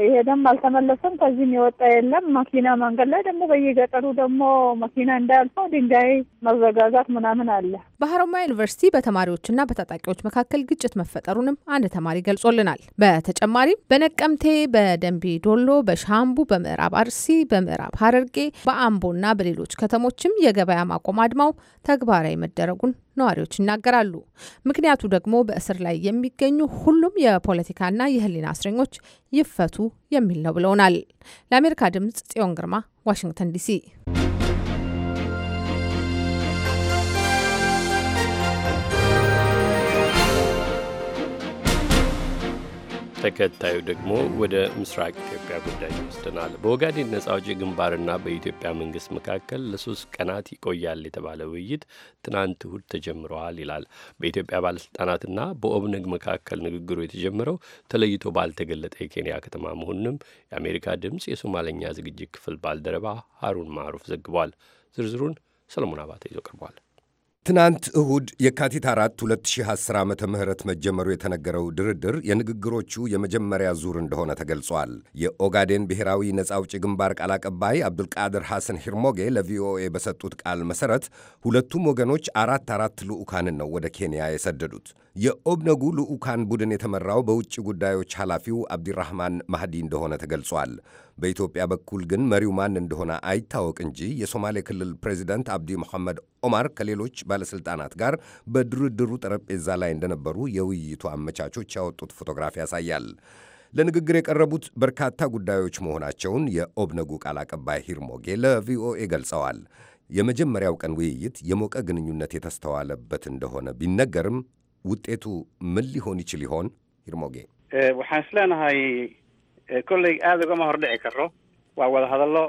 ይሄደም አልተመለሰም። ከዚህም የወጣ የለም መኪና። መንገድ ላይ ደግሞ በየገጠሩ ደግሞ መኪና እንዳያልፈው ድንጋይ መዘጋጋት ምናምን አለ። በሀሮማያ ዩኒቨርሲቲ በተማሪዎችና በታጣቂዎች መካከል ግጭት መፈጠሩንም አንድ ተማሪ ገልጾልናል። በተጨማሪም በነቀምቴ፣ በደንቢ ዶሎ፣ በሻምቡ፣ በምዕራብ አርሲ፣ በምዕራብ ሐረርጌ፣ በአምቦና በሌሎች ከተሞችም የገበያ ማቆም አድማው ተግባራዊ መደረጉን ነዋሪዎች ይናገራሉ። ምክንያቱ ደግሞ በእስር ላይ የሚገኙ ሁሉም የፖለቲካና የሕሊና እስረኞች ይፈቱ የሚል ነው ብለውናል። ለአሜሪካ ድምጽ ጽዮን ግርማ፣ ዋሽንግተን ዲሲ። ተከታዩ ደግሞ ወደ ምስራቅ ኢትዮጵያ ጉዳይ ይወስደናል። በኦጋዴን ነጻ አውጪ ግንባርና በኢትዮጵያ መንግስት መካከል ለ3 ቀናት ይቆያል የተባለ ውይይት ትናንት እሁድ ተጀምረዋል ይላል። በኢትዮጵያ ባለስልጣናትና በኦብነግ መካከል ንግግሩ የተጀመረው ተለይቶ ባልተገለጠ የኬንያ ከተማ መሆኑንም የአሜሪካ ድምፅ የሶማለኛ ዝግጅት ክፍል ባልደረባ ሀሩን ማሩፍ ዘግቧል። ዝርዝሩን ሰለሞን አባተ ይዞ ቀርቧል። ትናንት እሁድ የካቲት 4 2010 ዓመተ ምህረት መጀመሩ የተነገረው ድርድር የንግግሮቹ የመጀመሪያ ዙር እንደሆነ ተገልጿል። የኦጋዴን ብሔራዊ ነጻ አውጪ ግንባር ቃል አቀባይ አብዱልቃድር ሐሰን ሂርሞጌ ለቪኦኤ በሰጡት ቃል መሠረት ሁለቱም ወገኖች 4 ልዑካንን ነው ወደ ኬንያ የሰደዱት። የኦብነጉ ልዑካን ቡድን የተመራው በውጭ ጉዳዮች ኃላፊው አብዲራህማን ማህዲ እንደሆነ ተገልጿል። በኢትዮጵያ በኩል ግን መሪው ማን እንደሆነ አይታወቅ እንጂ የሶማሌ ክልል ፕሬዚደንት አብዲ መሐመድ ኦማር ከሌሎች ባለሥልጣናት ጋር በድርድሩ ጠረጴዛ ላይ እንደነበሩ የውይይቱ አመቻቾች ያወጡት ፎቶግራፍ ያሳያል። ለንግግር የቀረቡት በርካታ ጉዳዮች መሆናቸውን የኦብነጉ ቃል አቀባይ ሂርሞጌ ለቪኦኤ ገልጸዋል። የመጀመሪያው ቀን ውይይት የሞቀ ግንኙነት የተስተዋለበት እንደሆነ ቢነገርም ውጤቱ ምን ሊሆን ይችል ይሆን? ሂርሞጌ waxaan isleenahay kolley aad ugama hordhici karo waa wada hadallo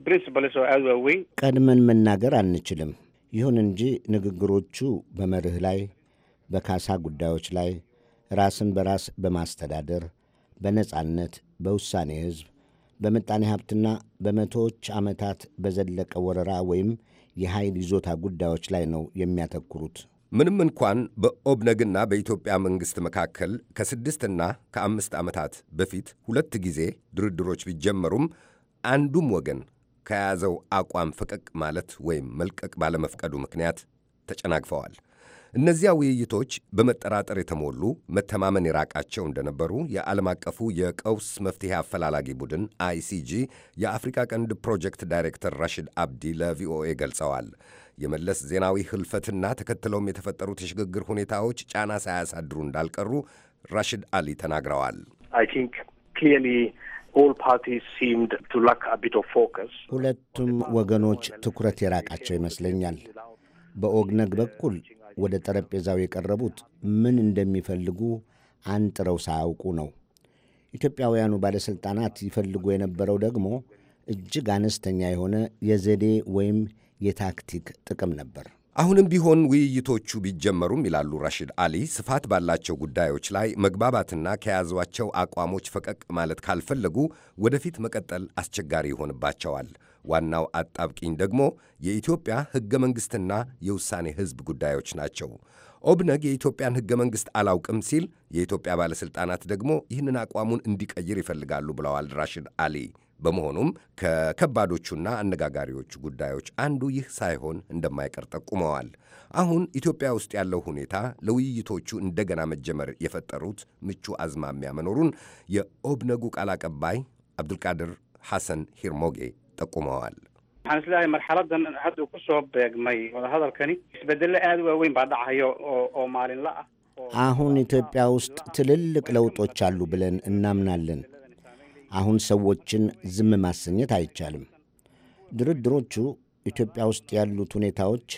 principles oo aad waaweyn ቀድመን መናገር አንችልም። ይሁን እንጂ ንግግሮቹ በመርህ ላይ፣ በካሳ ጉዳዮች ላይ፣ ራስን በራስ በማስተዳደር፣ በነጻነት፣ በውሳኔ ሕዝብ፣ በምጣኔ ሀብትና በመቶዎች ዓመታት በዘለቀ ወረራ ወይም የኃይል ይዞታ ጉዳዮች ላይ ነው የሚያተኩሩት። ምንም እንኳን በኦብነግና በኢትዮጵያ መንግሥት መካከል ከ6 እና ከ5 ዓመታት በፊት 2 ጊዜ ድርድሮች ቢጀመሩም አንዱም ወገን ከያዘው አቋም ፈቀቅ ማለት ወይም መልቀቅ ባለመፍቀዱ ምክንያት ተጨናግፈዋል። እነዚያ ውይይቶች በመጠራጠር የተሞሉ መተማመን የራቃቸው እንደነበሩ የዓለም አቀፉ የቀውስ መፍትሔ አፈላላጊ ቡድን አይሲጂ የአፍሪካ ቀንድ ፕሮጀክት ዳይሬክተር ራሽድ አብዲ ለቪኦኤ ገልጸዋል። የመለስ ዜናዊ ህልፈትና ተከትለውም የተፈጠሩት የሽግግር ሁኔታዎች ጫና ሳያሳድሩ እንዳልቀሩ ራሽድ አሊ ተናግረዋል። ሁለቱም ወገኖች ትኩረት የራቃቸው ይመስለኛል። በኦግነግ በኩል ወደ ጠረጴዛው የቀረቡት ምን እንደሚፈልጉ አንጥረው ሳያውቁ ነው። ኢትዮጵያውያኑ ባለሥልጣናት ይፈልጉ የነበረው ደግሞ እጅግ አነስተኛ የሆነ የዘዴ ወይም የታክቲክ ጥቅም ነበር። አሁንም ቢሆን ውይይቶቹ ቢጀመሩም ይላሉ ራሽድ አሊ፣ ስፋት ባላቸው ጉዳዮች ላይ መግባባትና ከያዟቸው አቋሞች ፈቀቅ ማለት ካልፈለጉ ወደፊት መቀጠል አስቸጋሪ ይሆንባቸዋል። ዋናው አጣብቂኝ ደግሞ የኢትዮጵያ ሕገ መንግሥትና የውሳኔ ሕዝብ ጉዳዮች ናቸው። ኦብነግ የኢትዮጵያን ሕገ መንግሥት አላውቅም ሲል፣ የኢትዮጵያ ባለሥልጣናት ደግሞ ይህንን አቋሙን እንዲቀይር ይፈልጋሉ ብለዋል ራሽድ አሊ። በመሆኑም ከከባዶቹና አነጋጋሪዎቹ ጉዳዮች አንዱ ይህ ሳይሆን እንደማይቀር ጠቁመዋል። አሁን ኢትዮጵያ ውስጥ ያለው ሁኔታ ለውይይቶቹ እንደገና መጀመር የፈጠሩት ምቹ አዝማሚያ መኖሩን የኦብነጉ ቃል አቀባይ አብዱልቃድር ሐሰን ሂርሞጌ ጠቁመዋል። waxaan islahay marxaladan hadda ku soo beegmay wada hadalkani isbedelo aad u waaweyn baa dhacayo oo maalinla ah. አሁን ኢትዮጵያ ውስጥ ትልልቅ ለውጦች አሉ ብለን እናምናለን። አሁን ሰዎችን ዝም ማሰኘት አይቻልም። ድርድሮቹ ኢትዮጵያ ውስጥ ያሉት ሁኔታዎች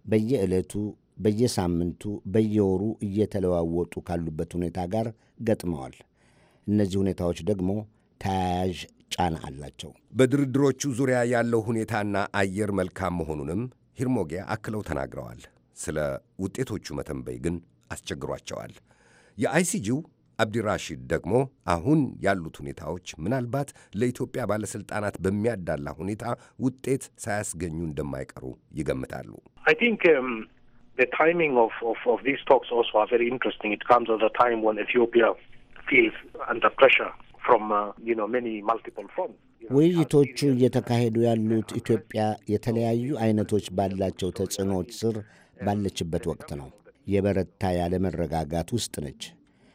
በየዕለቱ፣ በየሳምንቱ፣ በየወሩ እየተለዋወጡ ካሉበት ሁኔታ ጋር ገጥመዋል። እነዚህ ሁኔታዎች ደግሞ ተያያዥ ጫና አላቸው። በድርድሮቹ ዙሪያ ያለው ሁኔታና አየር መልካም መሆኑንም ሂርሞጌ አክለው ተናግረዋል። ስለ ውጤቶቹ መተንበይ ግን አስቸግሯቸዋል። የአይሲጂው አብዲራሺድ ደግሞ አሁን ያሉት ሁኔታዎች ምናልባት ለኢትዮጵያ ባለሥልጣናት በሚያዳላ ሁኔታ ውጤት ሳያስገኙ እንደማይቀሩ ይገምታሉ። I think the timing of these talks also are very interesting. It comes at a time when Ethiopia feels under pressure from many multiple fronts. ውይይቶቹ እየተካሄዱ ያሉት ኢትዮጵያ የተለያዩ አይነቶች ባላቸው ተጽዕኖዎች ስር ባለችበት ወቅት ነው። የበረታ ያለመረጋጋት ውስጥ ነች።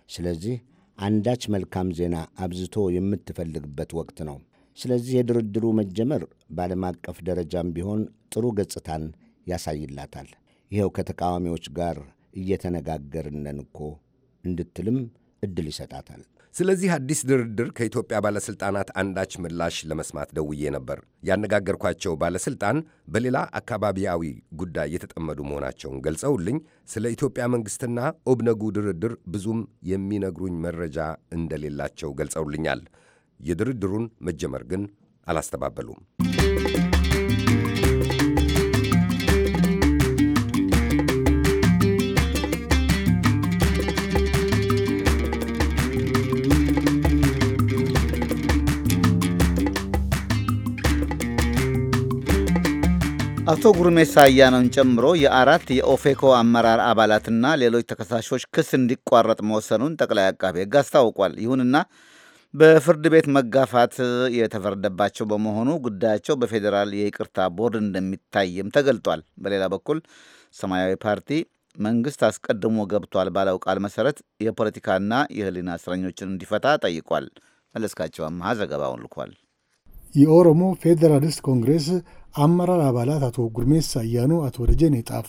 ስለዚህ አንዳች መልካም ዜና አብዝቶ የምትፈልግበት ወቅት ነው። ስለዚህ የድርድሩ መጀመር በዓለም አቀፍ ደረጃም ቢሆን ጥሩ ገጽታን ያሳይላታል። ይኸው ከተቃዋሚዎች ጋር እየተነጋገርነን እኮ እንድትልም ዕድል ይሰጣታል። ስለዚህ አዲስ ድርድር ከኢትዮጵያ ባለሥልጣናት አንዳች ምላሽ ለመስማት ደውዬ ነበር። ያነጋገርኳቸው ባለሥልጣን በሌላ አካባቢያዊ ጉዳይ የተጠመዱ መሆናቸውን ገልጸውልኝ ስለ ኢትዮጵያ መንግሥትና ኦብነጉ ድርድር ብዙም የሚነግሩኝ መረጃ እንደሌላቸው ገልጸውልኛል። የድርድሩን መጀመር ግን አላስተባበሉም። አቶ ጉርሜሳ አያኖን ጨምሮ የአራት የኦፌኮ አመራር አባላትና ሌሎች ተከሳሾች ክስ እንዲቋረጥ መወሰኑን ጠቅላይ አቃቤ ሕግ አስታውቋል። ይሁንና በፍርድ ቤት መጋፋት የተፈረደባቸው በመሆኑ ጉዳያቸው በፌዴራል የይቅርታ ቦርድ እንደሚታይም ተገልጧል። በሌላ በኩል ሰማያዊ ፓርቲ መንግስት አስቀድሞ ገብቷል ባለው ቃል መሰረት የፖለቲካና የሕሊና እስረኞችን እንዲፈታ ጠይቋል። መለስካቸው አማሃ ዘገባውን ልኳል። የኦሮሞ ፌዴራሊስት ኮንግሬስ አመራር አባላት አቶ ጉርሜሳ አያኖ፣ አቶ ደጀኔ ጣፋ፣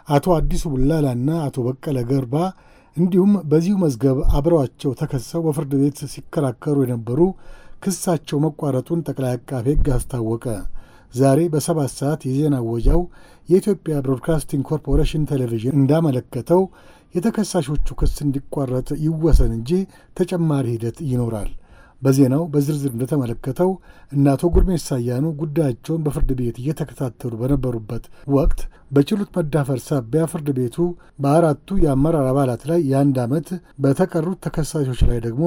አቶ አዲሱ ቡላላና አቶ በቀለ ገርባ እንዲሁም በዚሁ መዝገብ አብረዋቸው ተከሰው በፍርድ ቤት ሲከራከሩ የነበሩ ክሳቸው መቋረጡን ጠቅላይ አቃቤ ሕግ አስታወቀ። ዛሬ በ7 ሰዓት የዜና ወጃው የኢትዮጵያ ብሮድካስቲንግ ኮርፖሬሽን ቴሌቪዥን እንዳመለከተው የተከሳሾቹ ክስ እንዲቋረጥ ይወሰን እንጂ ተጨማሪ ሂደት ይኖራል። በዜናው በዝርዝር እንደተመለከተው እነ አቶ ጉርሜሳ አያኖ ጉዳያቸውን በፍርድ ቤት እየተከታተሉ በነበሩበት ወቅት በችሎት መዳፈር ሳቢያ ፍርድ ቤቱ በአራቱ የአመራር አባላት ላይ የ1 ዓመት በተቀሩት ተከሳሾች ላይ ደግሞ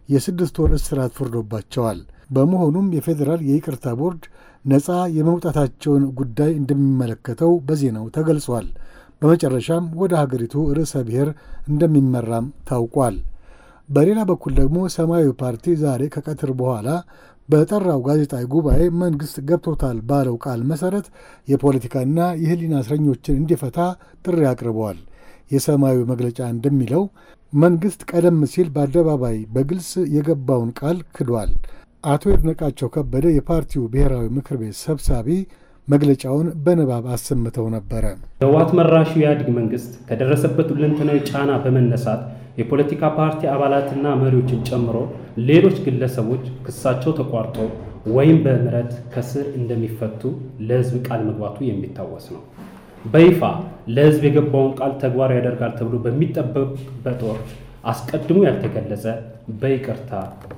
የ6 ወር እስራት ፈርዶባቸዋል። በመሆኑም የፌዴራል የይቅርታ ቦርድ ነፃ የመውጣታቸውን ጉዳይ እንደሚመለከተው በዜናው ተገልጿል። በመጨረሻም ወደ ሀገሪቱ ርዕሰ ብሔር እንደሚመራም ታውቋል። በሌላ በኩል ደግሞ ሰማያዊ ፓርቲ ዛሬ ከቀትር በኋላ በጠራው ጋዜጣዊ ጉባኤ መንግሥት ገብቶታል ባለው ቃል መሠረት የፖለቲካና የሕሊና እስረኞችን እንዲፈታ ጥሪ አቅርበዋል። የሰማያዊ መግለጫ እንደሚለው መንግሥት ቀደም ሲል በአደባባይ በግልጽ የገባውን ቃል ክዷል። አቶ ይድነቃቸው ከበደ የፓርቲው ብሔራዊ ምክር ቤት ሰብሳቢ መግለጫውን በንባብ አሰምተው ነበረ። ህወሓት መራሹ የኢህአዴግ መንግስት ከደረሰበት ሁለንተናዊ ጫና በመነሳት የፖለቲካ ፓርቲ አባላትና መሪዎችን ጨምሮ ሌሎች ግለሰቦች ክሳቸው ተቋርጦ ወይም በምህረት ከስር እንደሚፈቱ ለህዝብ ቃል መግባቱ የሚታወስ ነው። በይፋ ለህዝብ የገባውን ቃል ተግባራዊ ያደርጋል ተብሎ በሚጠበቅበት ወቅት አስቀድሞ ያልተገለጸ በይቅርታ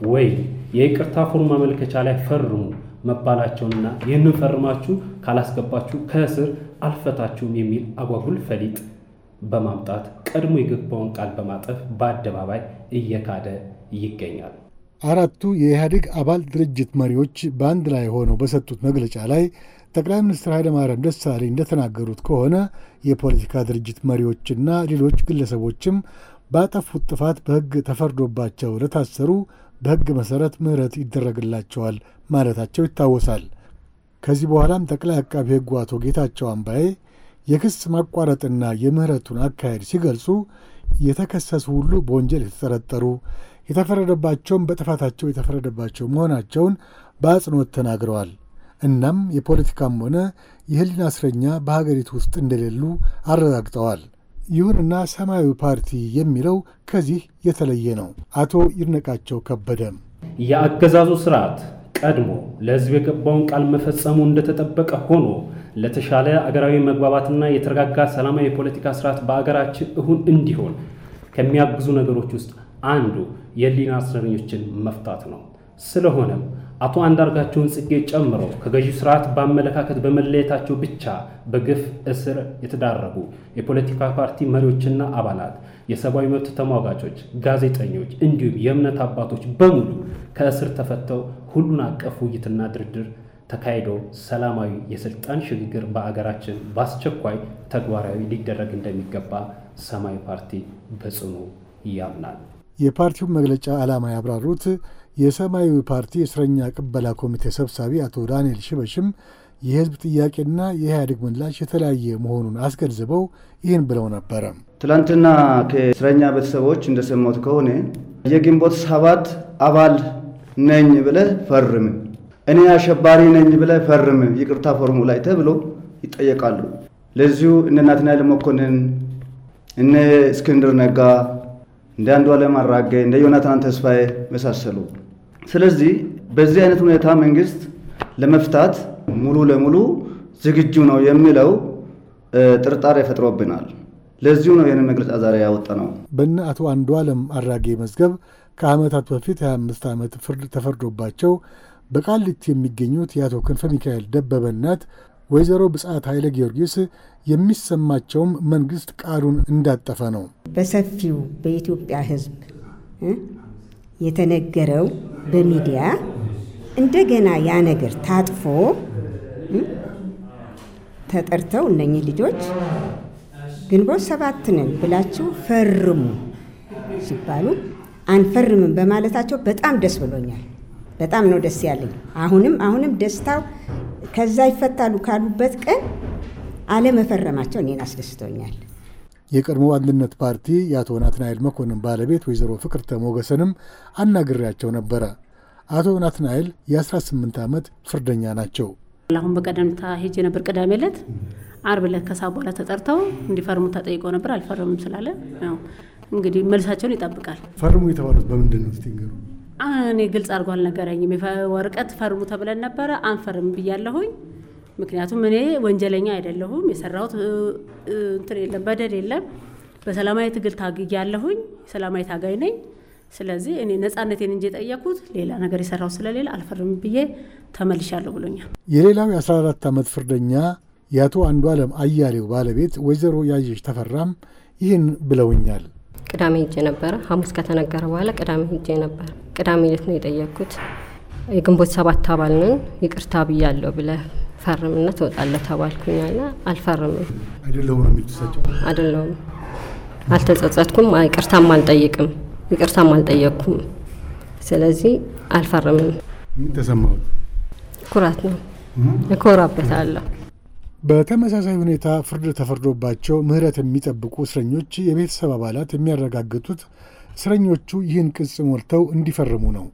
ወይም የይቅርታ ፎርም ማመልከቻ ላይ ፈርሙ መባላቸውንና ይህንን ፈርማችሁ ካላስገባችሁ ከእስር አልፈታችሁም የሚል አጓጉል ፈሊጥ በማምጣት ቀድሞ የገባውን ቃል በማጠፍ በአደባባይ እየካደ ይገኛል። አራቱ የኢህአዴግ አባል ድርጅት መሪዎች በአንድ ላይ ሆነው በሰጡት መግለጫ ላይ ጠቅላይ ሚኒስትር ኃይለማርያም ደሳለኝ እንደተናገሩት ከሆነ የፖለቲካ ድርጅት መሪዎችና ሌሎች ግለሰቦችም ባጠፉት ጥፋት በሕግ ተፈርዶባቸው ለታሰሩ በሕግ መሠረት ምህረት ይደረግላቸዋል ማለታቸው ይታወሳል። ከዚህ በኋላም ጠቅላይ አቃቢ ሕጉ አቶ ጌታቸው አምባዬ የክስ ማቋረጥና የምህረቱን አካሄድ ሲገልጹ የተከሰሱ ሁሉ በወንጀል የተጠረጠሩ የተፈረደባቸውም በጥፋታቸው የተፈረደባቸው መሆናቸውን በአጽንኦት ተናግረዋል። እናም የፖለቲካም ሆነ የሕሊና እስረኛ በሀገሪቱ ውስጥ እንደሌሉ አረጋግጠዋል። ይሁንና ሰማያዊ ፓርቲ የሚለው ከዚህ የተለየ ነው። አቶ ይድነቃቸው ከበደም የአገዛዙ ስርዓት ቀድሞ ለሕዝብ የገባውን ቃል መፈጸሙ እንደተጠበቀ ሆኖ ለተሻለ አገራዊ መግባባትና የተረጋጋ ሰላማዊ የፖለቲካ ስርዓት በአገራችን እውን እንዲሆን ከሚያግዙ ነገሮች ውስጥ አንዱ የሕሊና እስረኞችን መፍታት ነው። ስለሆነም አቶ አንዳርጋቸውን ጽጌ ጨምሮ ከገዢ ስርዓት በአመለካከት በመለየታቸው ብቻ በግፍ እስር የተዳረጉ የፖለቲካ ፓርቲ መሪዎችና አባላት፣ የሰብአዊ መብት ተሟጋቾች፣ ጋዜጠኞች እንዲሁም የእምነት አባቶች በሙሉ ከእስር ተፈተው ሁሉን አቀፍ ውይይትና ድርድር ተካሂዶ ሰላማዊ የስልጣን ሽግግር በአገራችን በአስቸኳይ ተግባራዊ ሊደረግ እንደሚገባ ሰማያዊ ፓርቲ በጽኑ ያምናል። የፓርቲውን መግለጫ ዓላማ ያብራሩት የሰማያዊ ፓርቲ የእስረኛ ቅበላ ኮሚቴ ሰብሳቢ አቶ ዳንኤል ሽበሽም የህዝብ ጥያቄና የኢህአዴግ ምላሽ የተለያየ መሆኑን አስገንዝበው ይህን ብለው ነበረ። ትላንትና ከእስረኛ ቤተሰቦች እንደሰማሁት ከሆነ የግንቦት 7 አባል ነኝ ብለህ ፈርም፣ እኔ አሸባሪ ነኝ ብለህ ፈርም ይቅርታ ፎርሙ ላይ ተብሎ ይጠየቃሉ። ለዚሁ እነ ናትናኤል መኮንን፣ እነ እስክንድር ነጋ፣ እንደ አንዱዓለም አራጌ፣ እንደ ዮናታን ተስፋዬ መሳሰሉ። ስለዚህ በዚህ አይነት ሁኔታ መንግስት ለመፍታት ሙሉ ለሙሉ ዝግጁ ነው የሚለው ጥርጣሬ ፈጥሮብናል። ለዚሁ ነው ይህንን መግለጫ ዛሬ ያወጣነው። በእነ አቶ አንዱዓለም አራጌ መዝገብ ከዓመታት በፊት 25 ዓመት ፍርድ ተፈርዶባቸው በቃሊቲ የሚገኙት የአቶ ክንፈ ሚካኤል ደበበ እናት ወይዘሮ ብጻት ኃይለ ጊዮርጊስ የሚሰማቸውም መንግስት ቃሉን እንዳጠፈ ነው። በሰፊው በኢትዮጵያ ሕዝብ የተነገረው በሚዲያ እንደገና ያ ነገር ታጥፎ ተጠርተው እነኚህ ልጆች ግንቦት 7 ነን ብላችሁ ፈርሙ ሲባሉ አንፈርምም በማለታቸው በጣም ደስ ብሎኛል። በጣም ነው ደስ ያለኝ። አሁንም ደስታው ከዛ ይፈታሉ ካሉበት ቀን አለመፈረማቸው እኔን አስደስቶኛል። የቀድሞ አንድነት ፓርቲ የአቶ ናትናኤል መኮንን ባለቤት ወይዘሮ ፍቅርተ ሞገሰንም አናግሬያቸው ነበረ። አቶ ናትናኤል የ18 ዓመት ፍርደኛ ናቸው። አሁን በቀደምታ ሄጄ ነበር ቅዳሜ ዕለት፣ ዓርብ ዕለት ከሰዓት በኋላ ተጠርተው እንዲፈርሙ ተጠይቀው ነበር። አልፈረሙም ስላለ ያው እንግዲህ መልሳቸውን ይጠብቃል። ፈርሙ የተባሉት በምንድን ነው እስቲ? እኔ ግልጽ አድርጎ አልነገረኝም። ወረቀት ፈርሙ ተብለን ነበረ፣ አንፈርም ብያለሁኝ። ምክንያቱም እኔ ወንጀለኛ አይደለሁም፣ የሰራሁት እንትን የለም፣ በደል የለም። በሰላማዊ ትግል ታግያለሁኝ፣ ሰላማዊ ታጋይ ነኝ። ስለዚህ እኔ ነጻነቴን እንጂ የጠየኩት ሌላ ነገር የሰራው ስለሌላ አልፈርም ብዬ ተመልሻለሁ ብሎኛል። የሌላው የ14 ዓመት ፍርደኛ የአቶ አንዱዓለም አያሌው ባለቤት ወይዘሮ ያየሽ ተፈራም ይህን ብለውኛል። ቅዳሜ ሄጄ ነበረ። ሐሙስ ከተነገረ በኋላ ቅዳሜ ሄጄ ነበር። ቅዳሜ ዕለት ነው የጠየኩት። የግንቦት 7 አባል ነን ይቅርታ ብያለሁ ብለህ ፈርምና ትወጣለህ ተባልኩኛልና አልፈርምም። አይደለሁም ነው የሚልተሰጨው? አይደለሁም፣ አልተጸጸትኩም፣ ይቅርታም አልጠይቅም፣ ይቅርታም አልጠየቅኩም። ስለዚህ አልፈርምም። ምን ተሰማው? ኩራት ነው፣ እኮራበታለሁ። በተመሳሳይ ሁኔታ ፍርድ ተፈርዶባቸው ምህረት የሚጠብቁ እስረኞች የቤተሰብ አባላት የሚያረጋግጡት እስረኞቹ ይህን ቅጽ ሞልተው እንዲፈርሙ ነው።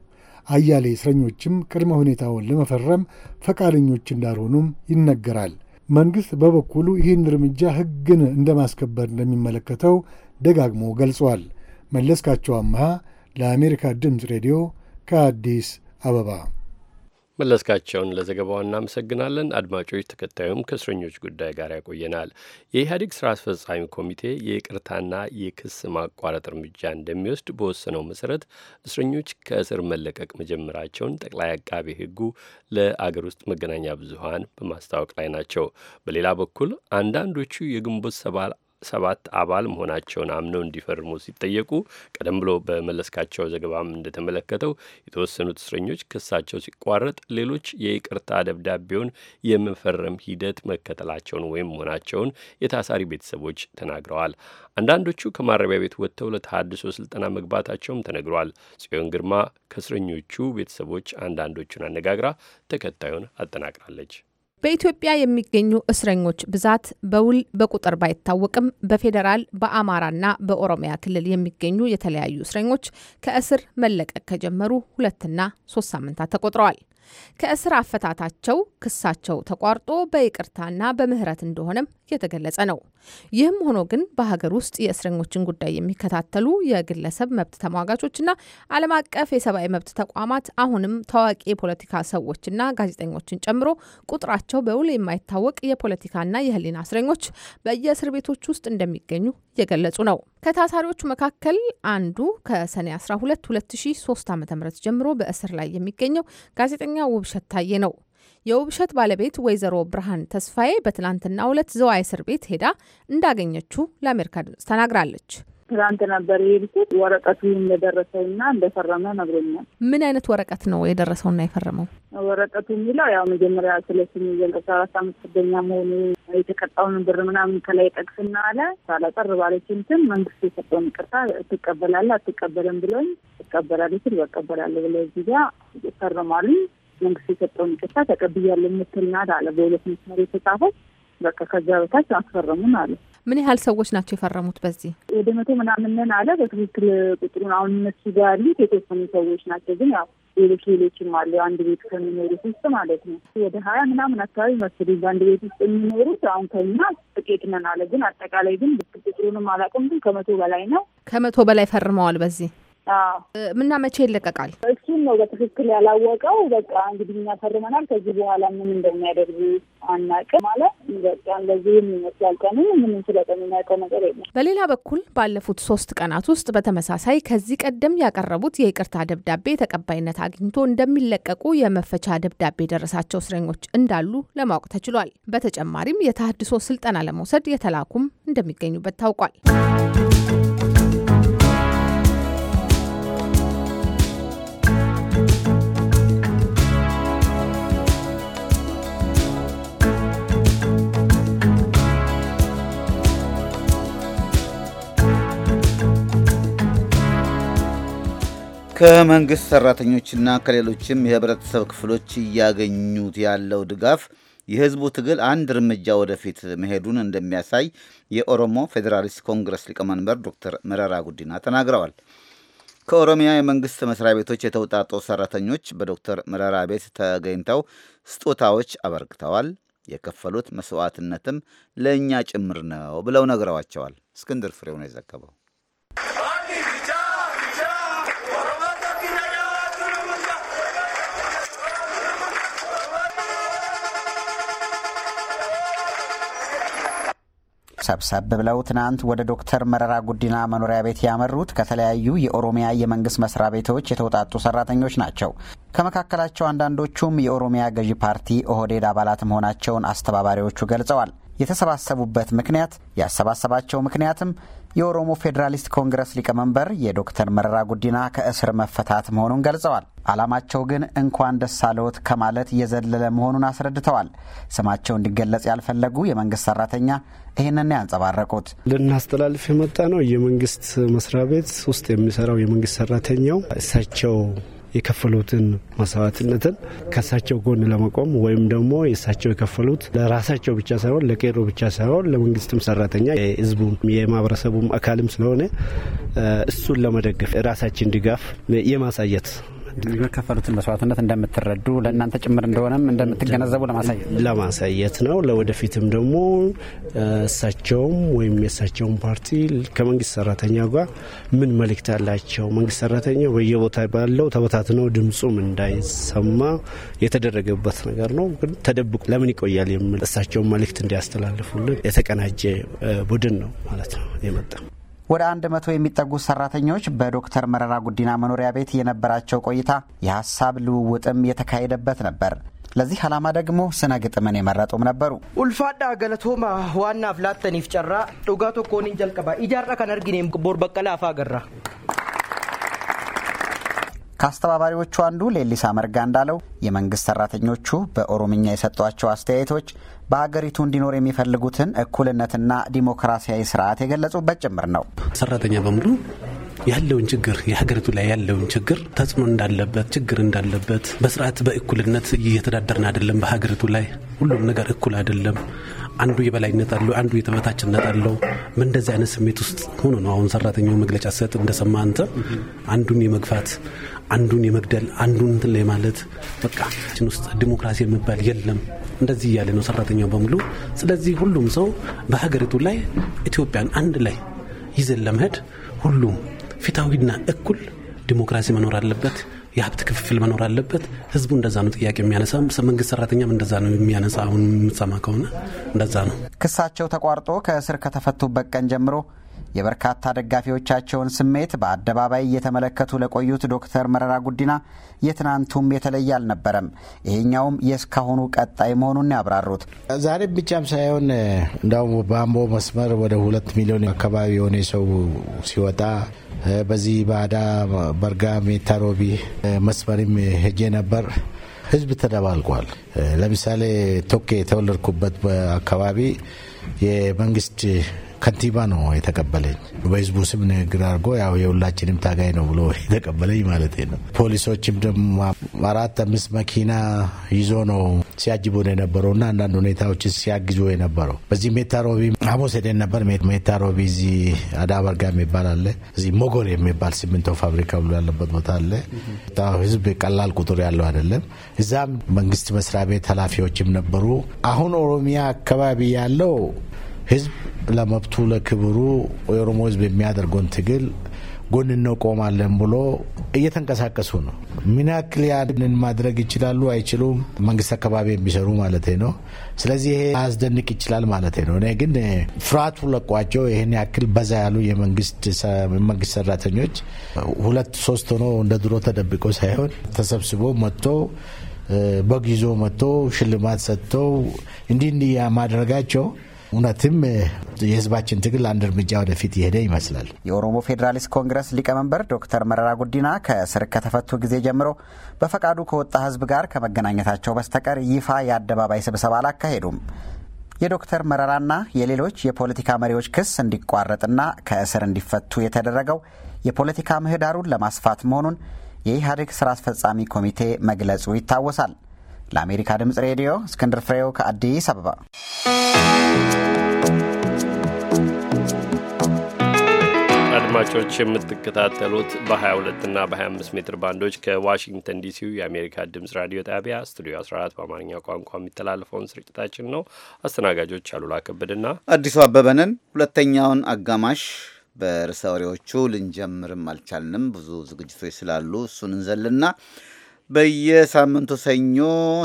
አያሌ እስረኞችም ቅድመ ሁኔታውን ለመፈረም ፈቃደኞች እንዳልሆኑም ይነገራል። መንግሥት በበኩሉ ይህን እርምጃ ሕግን እንደማስከበር እንደሚመለከተው ደጋግሞ ገልጿል። መለስካቸው አምሃ ለአሜሪካ ድምፅ ሬዲዮ ከአዲስ አበባ። መለስካቸውን ለዘገባው እናመሰግናለን። አድማጮች፣ ተከታዩም ከእስረኞች ጉዳይ ጋር ያቆየናል። የኢህአዴግ ስራ አስፈጻሚ ኮሚቴ የይቅርታና የክስ ማቋረጥ እርምጃ እንደሚወስድ በወሰነው መሰረት እስረኞች ከእስር መለቀቅ መጀመራቸውን ጠቅላይ አቃቤ ሕጉ ለአገር ውስጥ መገናኛ ብዙኃን በማስታወቅ ላይ ናቸው። በሌላ በኩል አንዳንዶቹ የግንቦት 7 አባል መሆናቸውን አምነው እንዲፈርሙ ሲጠየቁ ቀደም ብሎ በመለስካቸው ዘገባም እንደተመለከተው የተወሰኑት እስረኞች ክሳቸው ሲቋረጥ ሌሎች የይቅርታ ደብዳቤውን የመፈረም ሂደት መከተላቸውን ወይም መሆናቸውን የታሳሪ ቤተሰቦች ተናግረዋል። አንዳንዶቹ ከማረሚያ ቤት ወጥተው ለተሃድሶ ስልጠና መግባታቸውም ተነግሯል። ጽዮን ግርማ ከእስረኞቹ ቤተሰቦች አንዳንዶቹን አነጋግራ ተከታዩን አጠናቅራለች። በኢትዮጵያ የሚገኙ እስረኞች ብዛት በውል በቁጥር ባይታወቅም በፌዴራል በአማራና በኦሮሚያ ክልል የሚገኙ የተለያዩ እስረኞች ከእስር መለቀቅ ከጀመሩ 2 እና 3 ሳምንታት ተቆጥረዋል። ከእስር አፈታታቸው ክሳቸው ተቋርጦ በይቅርታና በምህረት እንደሆነም የተገለጸ ነው። ይህም ሆኖ ግን በሀገር ውስጥ የእስረኞችን ጉዳይ የሚከታተሉ የግለሰብ መብት ተሟጋቾችና ዓለም አቀፍ የሰብአዊ መብት ተቋማት አሁንም ታዋቂ የፖለቲካ ሰዎችና ጋዜጠኞችን ጨምሮ ቁጥራቸው በውል የማይታወቅ የፖለቲካና የሕሊና እስረኞች በየእስር ቤቶች ውስጥ እንደሚገኙ እየገለጹ ነው። ከታሳሪዎቹ መካከል አንዱ ከሰኔ 12 2003 ዓ.ም ጀምሮ በእስር ላይ የሚገኘው ጋዜጠኛ ውብሸት ታዬ ነው። የውብሸት ባለቤት ወይዘሮ ብርሃን ተስፋዬ በትናንትናው ዕለት ዘዋይ እስር ቤት ሄዳ እንዳገኘችው ለአሜሪካ ድምጽ ተናግራለች። ትናንት ነበር የሄድኩት። ወረቀቱ እንደደረሰውና እንደፈረመ ነግሮኛል። ምን አይነት ወረቀት ነው የደረሰውና የፈረመው? ወረቀቱ የሚለው ያው መጀመሪያ ስለስሙ የገልጻ 4 ዓመት ፍርደኛ መሆኑ የተቀጣውን ብር ምናምን ከላይ ጠቅስና አለ ሳላጠር ባለች እንትን መንግስት የሰጠውን ይቅርታ ትቀበላለህ አትቀበልም ብሎኝ እቀበላለሁ ስል እቀበላለሁ ብለው እዚህ ጋር ፈርማሉ። መንግስት የሰጠውን ይቅርታ ተቀብያለሁ የምትል ናት አለ። በሁለት መስመር የተጻፈው በቃ ከዛ በታች አስፈረሙን አለ። ምን ያህል ሰዎች ናቸው የፈረሙት? በዚህ ወደ 100 ምናምን አለ። በትክክል ቁጥሩን አሁን እነሱ ጋር ያሉት የተወሰኑ ሰዎች ናቸው። ግን ያው ሌሎችም አሉ አንድ ቤት ከሚኖሩት ውስጥ ማለት ነው። ወደ 20 ምናምን አካባቢ መስለኝ በአንድ ቤት ውስጥ የሚኖሩት። አሁን ከኛ ጥቂት ነን አለ። ግን አጠቃላይ ግን ቁጥሩንም አላውቅም። ግን 100 በላይ ነው። 100 በላይ ፈርመዋል በዚህ። ምና መቼ ይለቀቃል? እሱን ነው በትክክል ያላወቀው። በቃ እንግዲህ እኛ ፈርመናል። ከዚህ በኋላ ምን እንደሚያደርጉ አናውቅም ማለት በቃ እንደዚህ ይመስላል። ቀኑ ምን ስለሚያውቀው ነገር የለም። በሌላ በኩል ባለፉት 3 ቀናት ውስጥ በተመሳሳይ ከዚህ ቀደም ያቀረቡት የይቅርታ ደብዳቤ ተቀባይነት አግኝቶ እንደሚለቀቁ የመፈቻ ደብዳቤ ደረሳቸው እስረኞች እንዳሉ ለማወቅ ተችሏል። በተጨማሪም የተሃድሶ ስልጠና ለመውሰድ የተላኩም እንደሚገኙበት ታውቋል። ከመንግስት ሰራተኞችና ከሌሎችም የህብረተሰብ ክፍሎች እያገኙት ያለው ድጋፍ የህዝቡ ትግል አንድ እርምጃ ወደፊት መሄዱን እንደሚያሳይ የኦሮሞ ፌዴራሊስት ኮንግረስ ሊቀመንበር ዶክተር መረራ ጉዲና ተናግረዋል። ከኦሮሚያ የመንግስት መስሪያ ቤቶች የተውጣጡ ሰራተኞች በዶክተር መረራ ቤት ተገኝተው ስጦታዎች አበርክተዋል። የከፈሉት መስዋዕትነትም ለእኛ ጭምር ነው ብለው ነግረዋቸዋል። እስክንድር ፍሬው ነው የዘገበው። ሰብሰብ ብለው ትናንት ወደ ዶክተር መረራ ጉዲና መኖሪያ ቤት ያመሩት ከተለያዩ የኦሮሚያ የመንግስት መስሪያ ቤቶች የተውጣጡ ሰራተኞች ናቸው። ከመካከላቸው አንዳንዶቹም የኦሮሚያ ገዢ ፓርቲ ኦህዴድ አባላት መሆናቸውን አስተባባሪዎቹ ገልጸዋል። የተሰባሰቡበት ምክንያት ያሰባሰባቸው ምክንያትም የኦሮሞ ፌዴራሊስት ኮንግረስ ሊቀመንበር የዶክተር መረራ ጉዲና ከእስር መፈታት መሆኑን ገልጸዋል። ዓላማቸው ግን እንኳን ደስ አለዎት ከማለት የዘለለ መሆኑን አስረድተዋል። ስማቸው እንዲገለጽ ያልፈለጉ የመንግስት ሰራተኛ ይህንን ያንጸባረቁት ልናስተላልፍ የመጣ ነው። የመንግስት መስሪያ ቤት ውስጥ የሚሰራው የመንግስት ሰራተኛው እሳቸው የከፈሉትን መስዋዕትነትን ከእሳቸው ጎን ለመቆም ወይም ደግሞ የእሳቸው የከፈሉት ለራሳቸው ብቻ ሳይሆን ለቄሮ ብቻ ሳይሆን ለመንግስትም ሰራተኛ የህዝቡ የማህበረሰቡም አካልም ስለሆነ እሱን ለመደገፍ ራሳችን ድጋፍ የማሳየት የከፈሉትን መስዋዕትነት እንደምትረዱ ለእናንተ ጭምር እንደሆነም እንደምትገነዘቡ ለማሳየት ነው። ለወደፊትም ደግሞ እሳቸውም ወይም የእሳቸውን ፓርቲ ከመንግስት ሰራተኛ ጋር ምን መልእክት አላቸው፣ መንግስት ሰራተኛው በየቦታ ባለው ተበታትነው ድምጹም እንዳይሰማ የተደረገበት ነገር ነው። ግን ተደብቆ ለምን ይቆያል የሚል እሳቸውን መልእክት እንዲያስተላልፉልን የተቀናጀ ቡድን ነው ማለት ነው የመጣ። ወደ 100 የሚጠጉ ሰራተኞች በዶክተር መረራ ጉዲና መኖሪያ ቤት የነበራቸው ቆይታ የሀሳብ ልውውጥም የተካሄደበት ነበር። ለዚህ ዓላማ ደግሞ ስነ ግጥምን የመረጡም ነበሩ። ኡልፋዳ ገለቶማ ዋና ፍላተኒፍ ጨራ ዱጋቶ ኮኒን ጀልቀባ ኢጃራ ከነርጊኔም ቦር በቀላ አፋ ገራ። ከአስተባባሪዎቹ አንዱ ሌሊሳ መርጋ እንዳለው የመንግስት ሰራተኞቹ በኦሮምኛ የሰጧቸው አስተያየቶች በሀገሪቱ እንዲኖር የሚፈልጉትን እኩልነትና ዲሞክራሲያዊ ስርዓት የገለጹበት ጭምር ነው። ሰራተኛ በሙሉ ያለውን ችግር የሀገሪቱ ላይ ያለውን ችግር ተጽዕኖ እንዳለበት ችግር እንዳለበት በስርዓት በእኩልነት እየተዳደርን አይደለም። በሀገሪቱ ላይ ሁሉም ነገር እኩል አይደለም። አንዱ የበላይነት አለው፣ አንዱ የተበታችነት አለው። እንደዚህ አይነት ስሜት ውስጥ ሆኖ ነው አሁን ሰራተኛው መግለጫ ሰጥ እንደሰማ አንተ አንዱን የመግፋት አንዱን የመግደል አንዱን እንትን ላይ ማለት በቃ እችን ውስጥ ዲሞክራሲ የሚባል የለም እንደዚህ እያለ ነው ሰራተኛው በሙሉ። ስለዚህ ሁሉም ሰው በሀገሪቱ ላይ ኢትዮጵያን አንድ ላይ ይዘን ለመሄድ ሁሉም ፍትሃዊና እኩል ዲሞክራሲ መኖር አለበት፣ የሀብት ክፍፍል መኖር አለበት። ህዝቡ እንደዛ ነው ጥያቄ የሚያነሳ፣ መንግስት ሰራተኛም እንደዛ ነው የሚያነሳ። አሁን የምትሰማ ከሆነ እንደዛ ነው። ክሳቸው ተቋርጦ ከእስር ከተፈቱበት ቀን ጀምሮ የበርካታ ደጋፊዎቻቸውን ስሜት በአደባባይ እየተመለከቱ ለቆዩት ዶክተር መረራ ጉዲና የትናንቱም የተለየ አልነበረም። ይሄኛውም የእስካሁኑ ቀጣይ መሆኑን ያብራሩት ዛሬ ብቻም ሳይሆን እንዳውም በአምቦ መስመር ወደ 2 ሚሊዮን አካባቢ የሆነ ሰው ሲወጣ በዚህ ባዳ በርጋ ሜታ ሮቢ መስመርም ሄጄ ነበር። ህዝብ ተደባልቋል። ለምሳሌ ቶኬ የተወለድኩበት አካባቢ የመንግስት ከንቲባ ነው የተቀበለኝ። በህዝቡ ስም ንግግር አድርጎ ያው የሁላችንም ታጋይ ነው ብሎ የተቀበለኝ ማለት ነው። ፖሊሶችም ደግሞ 4-5 መኪና ይዞ ነው ሲያጅቡ የነበረውና አንዳንድ ሁኔታዎች ሲያግዙ የነበረው። በዚህ ሜታሮቢ ሐሙስ ሄደን ነበር። ሜታሮቢ እዚህ አዳበርጋ የሚባል አለ። እዚህ ሞጎር የሚባል ሲሚንቶ ፋብሪካ ብሎ ያለበት ቦታ አለ። ህዝብ ቀላል ቁጥር ያለው አይደለም። እዛም መንግስት መስሪያ ቤት ኃላፊዎችም ነበሩ። አሁን ኦሮሚያ አካባቢ ያለው ህዝብ ለመብቱ ለክብሩ የኦሮሞ ህዝብ የሚያደርገውን ትግል ጎን እንቆማለን ብሎ እየተንቀሳቀሱ ነው። ምን ያክል ያንን ማድረግ ይችላሉ አይችሉም? መንግስት አካባቢ የሚሰሩ ማለት ነው። ስለዚህ ይሄ አያስደንቅ ይችላል ማለት ነው። እኔ ግን ፍርሃቱ ለቋቸው ይሄን ያክል በዛ ያሉ የመንግስት ሰራተኞች 2-3 ሆኖ እንደ ድሮ ተደብቆ ሳይሆን ተሰብስቦ መጥቶ በግ ይዞ መጥቶ ሽልማት ሰጥተው እንዲህ ማድረጋቸው እውነትም የህዝባችን ትግል አንድ እርምጃ ወደፊት የሄደ ይመስላል። የኦሮሞ ፌዴራሊስት ኮንግረስ ሊቀመንበር ዶክተር መረራ ጉዲና ከእስር ከተፈቱ ጊዜ ጀምሮ በፈቃዱ ከወጣ ህዝብ ጋር ከመገናኘታቸው በስተቀር ይፋ የአደባባይ ስብሰባ አላካሄዱም። የዶክተር መረራና የሌሎች የፖለቲካ መሪዎች ክስ እንዲቋረጥና ከእስር እንዲፈቱ የተደረገው የፖለቲካ ምህዳሩን ለማስፋት መሆኑን የኢህአዴግ ስራ አስፈጻሚ ኮሚቴ መግለጹ ይታወሳል። ለአሜሪካ ድምፅ ሬዲዮ እስክንድር ፍሬው ከአዲስ አበባ። አድማጮች የምትከታተሉት በ22 እና በ25 ሜትር ባንዶች ከዋሽንግተን ዲሲው የአሜሪካ ድምፅ ራዲዮ ጣቢያ ስቱዲዮ 14 በአማርኛ ቋንቋ የሚተላለፈውን ስርጭታችን ነው። አስተናጋጆች አሉላ ከበድና አዲሱ አበበንን። ሁለተኛውን አጋማሽ በርዕሰ ወሬዎቹ ልንጀምርም አልቻልንም። ብዙ ዝግጅቶች ስላሉ እሱን እንዘልና በየሳምንቱ ሰኞ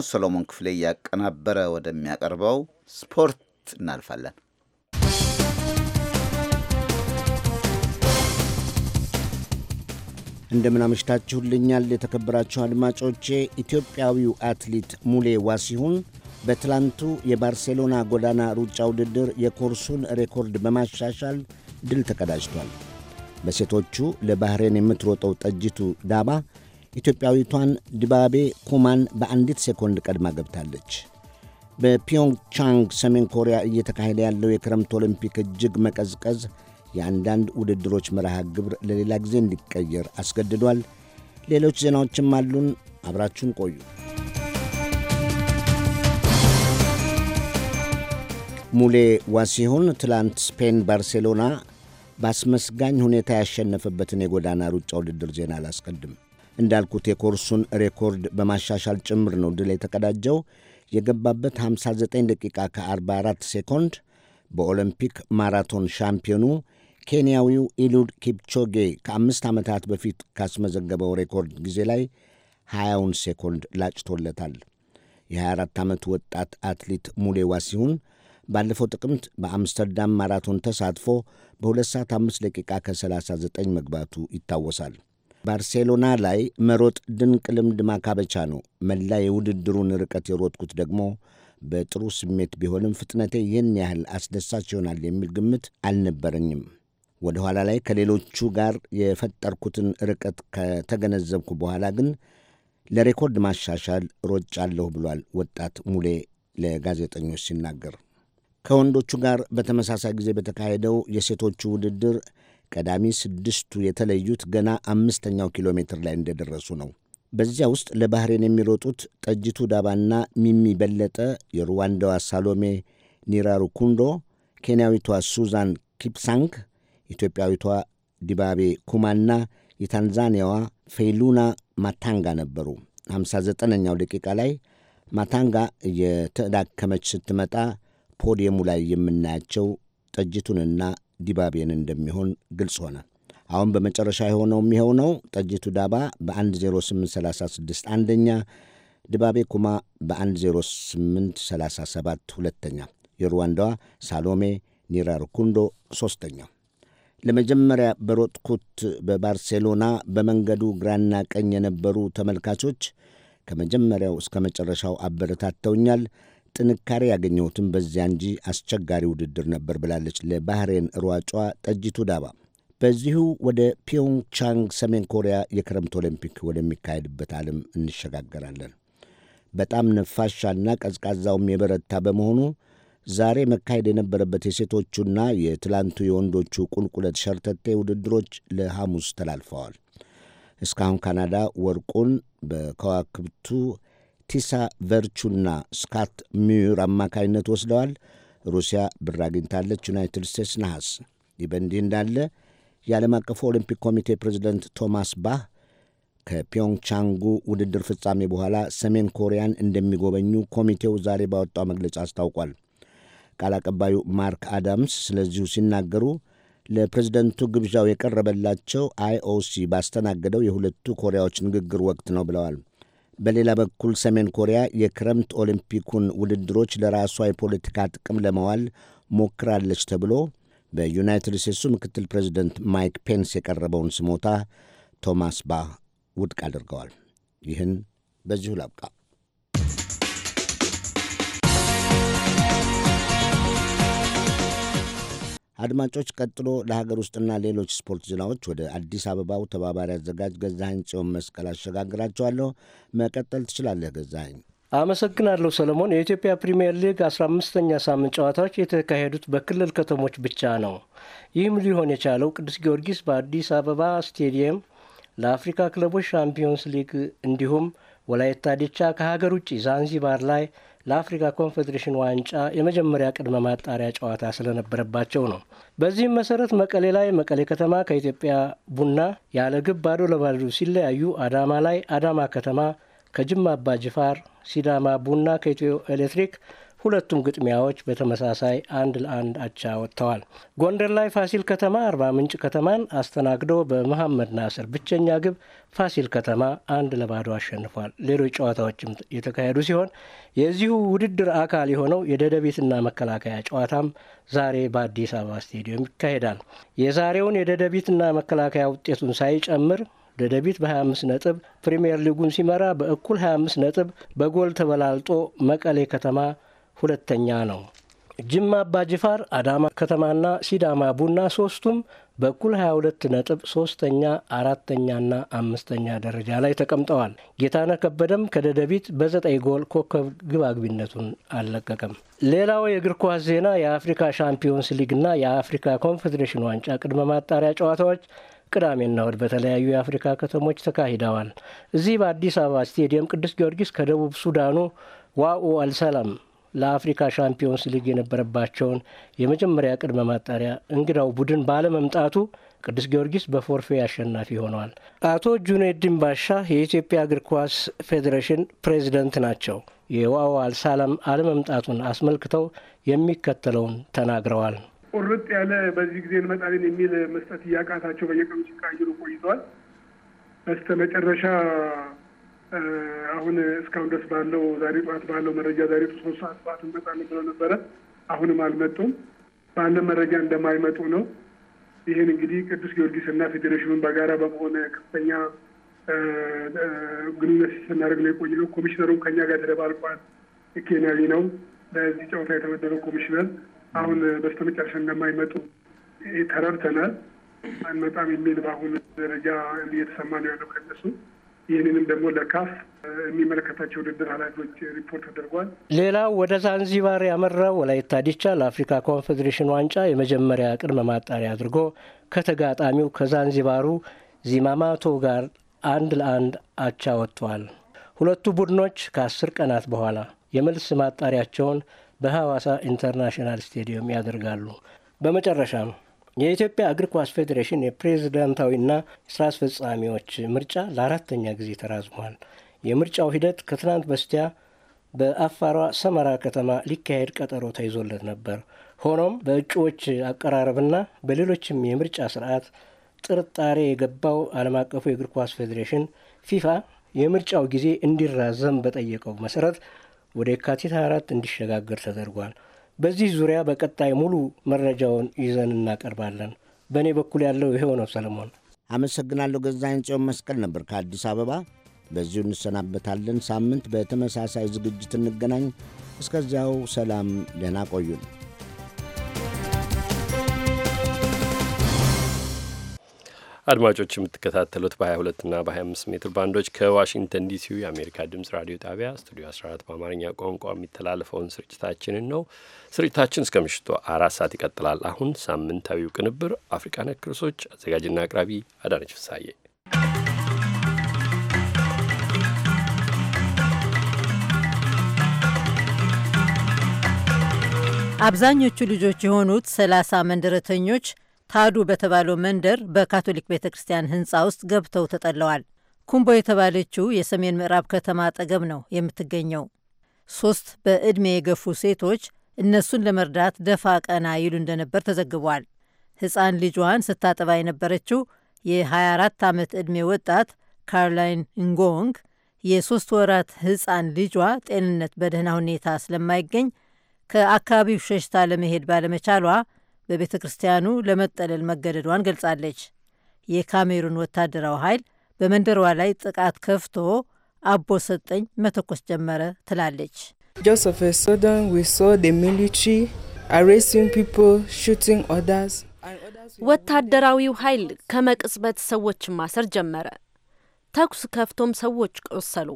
ሰሎሞን ክፍሌ እያቀናበረ ወደሚያቀርበው ስፖርት እናልፋለን። እንደምን አመሽታችሁልኛል የተከበራችሁ አድማጮቼ። ኢትዮጵያዊው አትሌት ሙሌ ዋሲሁን በትላንቱ የባርሴሎና ጎዳና ሩጫ ውድድር የኮርሱን ሬኮርድ በማሻሻል ድል ተቀዳጅቷል። በሴቶቹ ለባህሬን የምትሮጠው ጠጅቱ ዳባ ኢትዮጵያዊቷን ዲባቤ ኩማን በአንዲት ሴኮንድ ቀድማ ገብታለች። በፒዮንግቻንግ ሰሜን ኮሪያ እየተካሄደ ያለው የክረምት ኦሊምፒክ እጅግ መቀዝቀዝ የአንዳንድ ውድድሮች መርሃ ግብር ለሌላ ጊዜ እንዲቀየር አስገድዷል። ሌሎች ዜናዎችም አሉን። አብራችሁን ቆዩ። ሙሌ ዋሲሁን ትላንት ስፔን ባርሴሎና በአስመስጋኝ ሁኔታ ያሸነፈበትን የጎዳና ሩጫ ውድድር ዜና አላስቀድም። እንዳልኩት የኮርሱን ሬኮርድ በማሻሻል ጭምር ነው ድል የተቀዳጀው። የገባበት 59 ደቂቃ ከ44 ሴኮንድ በኦሎምፒክ ማራቶን ሻምፒዮኑ ኬንያዊው ኢሉድ ኪፕቾጌ ከ5 ዓመታት በፊት ካስመዘገበው ሬኮርድ ጊዜ ላይ 20 ሴኮንድ ላጭቶለታል። የ24 ዓመት ወጣት አትሌት ሙሌ ዋሲሁን ባለፈው ጥቅምት በአምስተርዳም ማራቶን ተሳትፎ በ2 ሰዓት 5 ደቂቃ ከ39 መግባቱ ይታወሳል። ባርሴሎና ላይ መሮጥ ድንቅ ልምድ ማካበቻ ነው። መላ የውድድሩን ርቀት የሮጥኩት ደግሞ በጥሩ ስሜት ቢሆንም ፍጥነቴ ይህን ያህል አስደሳች ይሆናል የሚል ግምት አልነበረኝም። ወደ ኋላ ላይ ከሌሎቹ ጋር የፈጠርኩትን ርቀት ከተገነዘብኩ በኋላ ግን ለሬኮርድ ማሻሻል ሮጫለሁ ብሏል ወጣት ሙሌ ለጋዜጠኞች ሲናገር። ከወንዶቹ ጋር በተመሳሳይ ጊዜ በተካሄደው የሴቶቹ ውድድር ቀዳሚ 6ቱ የተለዩት ገና 5ኛው ኪሎ ሜትር ላይ እንደደረሱ ነው። በዚያ ውስጥ ለባህሬን የሚሮጡት ጠጅቱ ዳባና ሚሚ በለጠ፣ የሩዋንዳዋ ሳሎሜ ኒራሩኩንዶ፣ ኬንያዊቷ ሱዛን ኪፕሳንግ፣ ኢትዮጵያዊቷ ዲባቤ ኩማና የታንዛኒያዋ ፌሉና ማታንጋ ነበሩ። 59ኛው ደቂቃ ላይ ማታንጋ እየተዳከመች ስትመጣ ፖዲየሙ ላይ የምናያቸው ጠጅቱንና ዲባቤን እንደሚሆን ግልጽ ሆነ። አሁን በመጨረሻ የሆነው የሚሆነው ጠጅቱ ዳባ በ1:08:36 አንደኛ፣ ዲባቤ ኩማ በ1:08:37 ሁለተኛ፣ የሩዋንዳዋ ሳሎሜ ኒራሩኩንዶ ሦስተኛ። ለመጀመሪያ በሮጥኩት በባርሴሎና በመንገዱ ግራና ቀኝ የነበሩ ተመልካቾች ከመጀመሪያው እስከ መጨረሻው አበረታተውኛል። ጥንካሬ ያገኘሁትም በዚያ እንጂ አስቸጋሪ ውድድር ነበር ብላለች ለባህሬን ሯጯ ጠጅቱ ዳባ። በዚሁ ወደ ፒዮንግቻንግ ሰሜን ኮሪያ የክረምት ኦሊምፒክ ወደሚካሄድበት ዓለም እንሸጋገራለን። በጣም ነፋሻና ቀዝቃዛውም የበረታ በመሆኑ ዛሬ መካሄድ የነበረበት የሴቶቹና የትላንቱ የወንዶቹ ቁልቁለት ሸርተቴ ውድድሮች ለሐሙስ ተላልፈዋል። እስካሁን ካናዳ ወርቁን በከዋክብቱ ቲሳ ቨርቹና ስካት ሚዩር አማካይነት ወስደዋል። ሩሲያ ብር አግኝታለች። ዩናይትድ ስቴትስ ነሐስ። ይህ በእንዲህ እንዳለ የዓለም አቀፉ ኦሊምፒክ ኮሚቴ ፕሬዚደንት ቶማስ ባህ ከፒዮንግቻንጉ ውድድር ፍጻሜ በኋላ ሰሜን ኮሪያን እንደሚጎበኙ ኮሚቴው ዛሬ ባወጣው መግለጫ አስታውቋል። ቃል አቀባዩ ማርክ አዳምስ ስለዚሁ ሲናገሩ ለፕሬዝደንቱ ግብዣው የቀረበላቸው አይኦሲ ባስተናገደው የሁለቱ ኮሪያዎች ንግግር ወቅት ነው ብለዋል። በሌላ በኩል ሰሜን ኮሪያ የክረምት ኦሊምፒኩን ውድድሮች ለራሷ የፖለቲካ ጥቅም ለማዋል ሞክራለች ተብሎ በዩናይትድ ስቴትሱ ምክትል ፕሬዚደንት ማይክ ፔንስ የቀረበውን ስሞታ ቶማስ ባህ ውድቅ አድርገዋል። ይህን በዚሁ ላብቃ። አድማጮች፣ ቀጥሎ ለሀገር ውስጥና ሌሎች ስፖርት ዜናዎች ወደ አዲስ አበባው ተባባሪ አዘጋጅ ገዛኸኝ ጽዮን መስቀል አሸጋግራቸዋለሁ። መቀጠል ትችላለህ ገዛኸኝ። አመሰግናለሁ ሰለሞን። የኢትዮጵያ ፕሪምየር ሊግ 15ኛ ሳምንት ጨዋታዎች የተካሄዱት በክልል ከተሞች ብቻ ነው። ይህም ሊሆን የቻለው ቅዱስ ጊዮርጊስ በአዲስ አበባ ስቴዲየም ለአፍሪካ ክለቦች ሻምፒዮንስ ሊግ እንዲሁም ወላይታ ዲቻ ከሀገር ውጭ ዛንዚባር ላይ ለአፍሪካ ኮንፌዴሬሽን ዋንጫ የመጀመሪያ ቅድመ ማጣሪያ ጨዋታ ስለነበረባቸው ነው። በዚህም መሰረት መቀሌ ላይ መቀሌ ከተማ ከኢትዮጵያ ቡና ያለ ግብ ባዶ ለባዶ ሲለያዩ፣ አዳማ ላይ አዳማ ከተማ ከጅማ አባ ጅፋር፣ ሲዳማ ቡና ከኢትዮ ኤሌክትሪክ ሁለቱም ግጥሚያዎች በተመሳሳይ 1-1 አቻ ወጥተዋል። ጎንደር ላይ ፋሲል ከተማ አርባ ምንጭ ከተማን አስተናግዶ በመሐመድ ናስር ብቸኛ ግብ ፋሲል ከተማ 1-0 አሸንፏል። ሌሎች ጨዋታዎችም የተካሄዱ ሲሆን የዚሁ ውድድር አካል የሆነው የደደቢትና መከላከያ ጨዋታም ዛሬ በአዲስ አበባ ስቴዲየም ይካሄዳል። የዛሬውን የደደቢትና መከላከያ ውጤቱን ሳይጨምር ደደቢት በ25 ነጥብ ፕሪምየር ሊጉን ሲመራ በእኩል 25 ነጥብ በጎል ተበላልጦ መቀሌ ከተማ ሁለተኛ ነው። ጅማ አባ ጅፋር፣ አዳማ ከተማና ሲዳማ ቡና ሶስቱም በኩል 22 ነጥብ ሶስተኛ፣ አራተኛና አምስተኛ ደረጃ ላይ ተቀምጠዋል። ጌታነህ ከበደም ከደደቢት በ9 ጎል ኮከብ ግብ አግቢነቱን አልለቀቀም። ሌላው የእግር ኳስ ዜና የአፍሪካ ሻምፒዮንስ ሊግና የአፍሪካ ኮንፌዴሬሽን ዋንጫ ቅድመ ማጣሪያ ጨዋታዎች ቅዳሜና እሁድ በተለያዩ የአፍሪካ ከተሞች ተካሂደዋል። እዚህ በአዲስ አበባ ስቴዲየም ቅዱስ ጊዮርጊስ ከደቡብ ሱዳኑ ዋኡ አልሰላም ለአፍሪካ ሻምፒዮንስ ሊግ የነበረባቸውን የመጀመሪያ ቅድመ ማጣሪያ እንግዳው ቡድን ባለመምጣቱ ቅዱስ ጊዮርጊስ በፎርፌ አሸናፊ ሆነዋል። አቶ ጁኔዲን ባሻ የኢትዮጵያ እግር ኳስ ፌዴሬሽን ፕሬዚደንት ናቸው። የዋኡ አልሰላም አለመምጣቱን አስመልክተው የሚከተለውን ተናግረዋል። ቁርጥ ያለ በዚህ ጊዜ እንመጣለን የሚል መስጠት እያቃታቸው በየቀኑ ሲቃይሩ ቆይተዋል። በስተ መጨረሻ አሁን እስካሁን ድረስ ባለው ዛሬ ጠዋት ባለው መረጃ ዛሬ 3 ሰዓት ጠዋት እንመጣለን ብለው ነበረ። አሁንም አልመጡም። ባለ መረጃ እንደማይመጡ ነው። ይህን እንግዲህ ቅዱስ ጊዮርጊስና ፌዴሬሽኑን በጋራ በመሆን ከፍተኛ ግንኙነት ስናደርግ ነው የቆየነው። ኮሚሽነሩም ከኛ ጋር ተደባልቋል። ኬንያዊ ነው ለዚህ ጨዋታ የተመደበው ኮሚሽነር። አሁን በስተመጨረሻ እንደማይመጡ ተረድተናል። አንመጣም የሚል በአሁኑ ደረጃ እየተሰማ ነው ያለው ከነሱ። ይህንንም ደግሞ ለካፍ የሚመለከታቸው ውድድር ኃላፊዎች ሪፖርት ተደርጓል። ሌላው ወደ ዛንዚባር ያመራው ወላይታ ዲቻ ለአፍሪካ ኮንፌዴሬሽን ዋንጫ የመጀመሪያ ቅድመ ማጣሪያ አድርጎ ከተጋጣሚው ከዛንዚባሩ ዚማማቶ ጋር 1-1 አቻ ወጥተዋል። ሁለቱ ቡድኖች ከ10 ቀናት በኋላ የመልስ ማጣሪያቸውን በሐዋሳ ኢንተርናሽናል ስቴዲየም ያደርጋሉ። በመጨረሻም የኢትዮጵያ እግር ኳስ ፌዴሬሽን የፕሬዝዳንታዊና ስራ አስፈጻሚዎች ምርጫ ለ4ኛ ጊዜ ተራዝሟል። የምርጫው ሂደት ከትናንት በስቲያ በአፋሯ ሰመራ ከተማ ሊካሄድ ቀጠሮ ተይዞለት ነበር። ሆኖም በእጩዎች አቀራረብና በሌሎችም የምርጫ ስርዓት ጥርጣሬ የገባው ዓለም አቀፉ የእግር ኳስ ፌዴሬሽን ፊፋ የምርጫው ጊዜ እንዲራዘም በጠየቀው መሰረት ወደ የካቲት 24 እንዲሸጋገር ተደርጓል። በዚህ ዙሪያ በቀጣይ ሙሉ መረጃውን ይዘን እናቀርባለን። በእኔ በኩል ያለው ይሄው ነው። ሰለሞን አመሰግናለሁ። ገዛኸኝ ጽዮን መስቀል ነበር ከአዲስ አበባ። በዚሁ እንሰናበታለን። ሳምንት በተመሳሳይ ዝግጅት እንገናኝ። እስከዚያው ሰላም፣ ደህና ቆዩን። አድማጮች የምትከታተሉት በ22 እና በ25 ሜትር ባንዶች ከዋሽንግተን ዲሲው የአሜሪካ ድምጽ ራዲዮ ጣቢያ ስቱዲዮ 14 በአማርኛ ቋንቋ የሚተላለፈውን ስርጭታችንን ነው። ስርጭታችን እስከ ምሽቱ 4 ሰዓት ይቀጥላል። አሁን ሳምንታዊው ቅንብር አፍሪካ ነክ ርዕሶች፣ አዘጋጅና አቅራቢ አዳነች ፍሳዬ። አብዛኞቹ ልጆች የሆኑት 30 መንደረተኞች ታዱ በተባለው መንደር በካቶሊክ ቤተ ክርስቲያን ህንፃ ውስጥ ገብተው ተጠለዋል። ኩምቦ የተባለችው የሰሜን ምዕራብ ከተማ አጠገብ ነው የምትገኘው። 3 በዕድሜ የገፉ ሴቶች እነሱን ለመርዳት ደፋ ቀና ይሉ እንደነበር ተዘግቧል። ሕፃን ልጇን ስታጠባ የነበረችው የ24 ዓመት ዕድሜ ወጣት ካሮላይን ንጎንግ የ3 ወራት ሕፃን ልጇ ጤንነት በደህና ሁኔታ ስለማይገኝ ከአካባቢው ሸሽታ ለመሄድ ባለመቻሏ በቤተ ክርስቲያኑ ለመጠለል መገደዷን ገልጻለች። የካሜሩን ወታደራዊ ኃይል በመንደሯ ላይ ጥቃት ከፍቶ አቦ ሰጠኝ መተኮስ ጀመረ ትላለች። ወታደራዊው ኃይል ከመቅጽበት ሰዎችን ማሰር ጀመረ። ተኩስ ከፍቶም ሰዎች ቆሰሉ።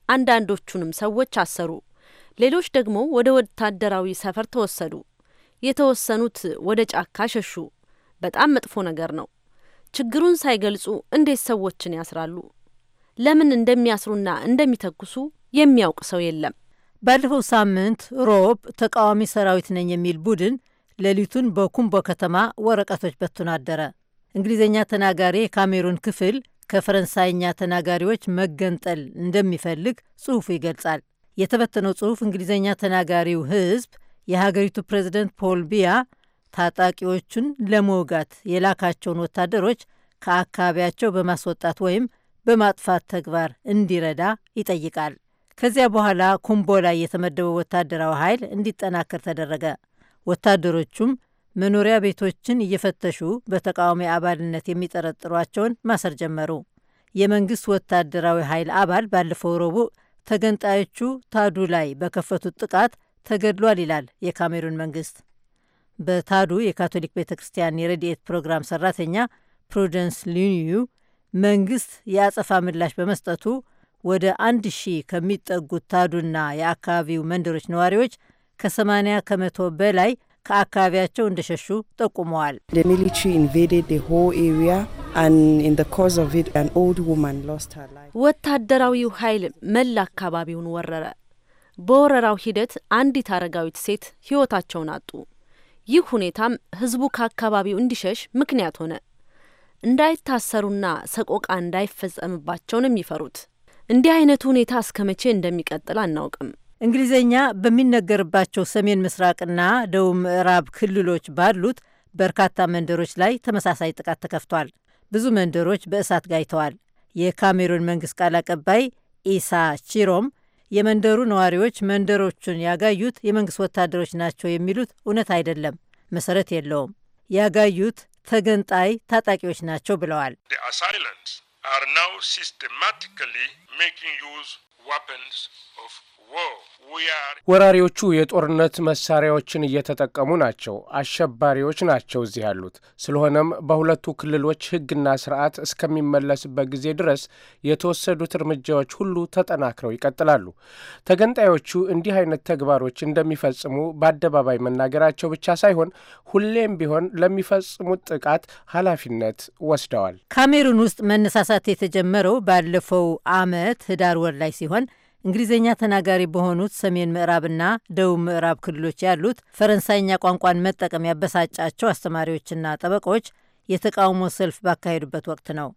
አንዳንዶቹንም ሰዎች አሰሩ። ሌሎች ደግሞ ወደ ወታደራዊ ሰፈር ተወሰዱ። የተወሰኑት ወደ ጫካ ሸሹ። በጣም መጥፎ ነገር ነው። ችግሩን ሳይገልጹ እንዴት ሰዎችን ያስራሉ? ለምን እንደሚያስሩና እንደሚተኩሱ የሚያውቅ ሰው የለም። ባለፈው ሳምንት ሮብ ተቃዋሚ ሰራዊት ነኝ የሚል ቡድን ሌሊቱን በኩምቦ ከተማ ወረቀቶች በትኖ አደረ። እንግሊዝኛ ተናጋሪ የካሜሩን ክፍል ከፈረንሳይኛ ተናጋሪዎች መገንጠል እንደሚፈልግ ጽሑፉ ይገልጻል። የተበተነው ጽሑፍ እንግሊዝኛ ተናጋሪው ሕዝብ የሀገሪቱ ፕሬዝደንት ፖል ቢያ ታጣቂዎቹን ለመውጋት የላካቸውን ወታደሮች ከአካባቢያቸው በማስወጣት ወይም በማጥፋት ተግባር እንዲረዳ ይጠይቃል። ከዚያ በኋላ ኩምቦ ላይ የተመደበው ወታደራዊ ኃይል እንዲጠናከር ተደረገ። ወታደሮቹም መኖሪያ ቤቶችን እየፈተሹ በተቃዋሚ አባልነት የሚጠረጥሯቸውን ማሰር ጀመሩ። የመንግስት ወታደራዊ ኃይል አባል ባለፈው ረቡዕ ተገንጣዮቹ ታዱ ላይ በከፈቱት ጥቃት ተገድሏል ይላል የካሜሩን መንግስት። በታዱ የካቶሊክ ቤተ ክርስቲያን የረድኤት ፕሮግራም ሰራተኛ ፕሩደንስ ሊኒዩ መንግስት የአጸፋ ምላሽ በመስጠቱ ወደ 1000 ከሚጠጉት ታዱና የአካባቢው መንደሮች ነዋሪዎች ከ80 ከመቶ በላይ ከአካባቢያቸው እንደሸሹ ጠቁመዋል። ወታደራዊው ኃይል መላ አካባቢውን ወረረ። በወረራው ሂደት አንዲት አረጋዊት ሴት ሕይወታቸውን አጡ። ይህ ሁኔታም ህዝቡ ከአካባቢው እንዲሸሽ ምክንያት ሆነ። እንዳይታሰሩና ሰቆቃ እንዳይፈጸምባቸው ነው የሚፈሩት። እንዲህ አይነቱ ሁኔታ እስከ መቼ እንደሚቀጥል አናውቅም። እንግሊዝኛ በሚነገርባቸው ሰሜን ምስራቅና ደቡብ ምዕራብ ክልሎች ባሉት በርካታ መንደሮች ላይ ተመሳሳይ ጥቃት ተከፍቷል። ብዙ መንደሮች በእሳት ጋይተዋል። የካሜሩን መንግስት ቃል አቀባይ ኢሳ ቺሮም የመንደሩ ነዋሪዎች መንደሮቹን ያጋዩት የመንግስት ወታደሮች ናቸው የሚሉት እውነት አይደለም፣ መሰረት የለውም። ያጋዩት ተገንጣይ ታጣቂዎች ናቸው ብለዋል። ወራሪዎቹ የጦርነት መሳሪያዎችን እየተጠቀሙ ናቸው። አሸባሪዎች ናቸው እዚህ ያሉት። ስለሆነም በሁለቱ ክልሎች ሕግና ስርዓት እስከሚመለስበት ጊዜ ድረስ የተወሰዱት እርምጃዎች ሁሉ ተጠናክረው ይቀጥላሉ። ተገንጣዮቹ እንዲህ አይነት ተግባሮች እንደሚፈጽሙ በአደባባይ መናገራቸው ብቻ ሳይሆን ሁሌም ቢሆን ለሚፈጽሙት ጥቃት ኃላፊነት ወስደዋል። ካሜሩን ውስጥ መነሳሳት የተጀመረው ባለፈው ዓመት ህዳር ወር ላይ ሲሆን እንግሊዝኛ ተናጋሪ በሆኑት ሰሜን ምዕራብና ደቡብ ምዕራብ ክልሎች ያሉት ፈረንሳይኛ ቋንቋን መጠቀም ያበሳጫቸው አስተማሪዎችና ጠበቆች የተቃውሞ ሰልፍ ባካሄዱበት ወቅት ነው።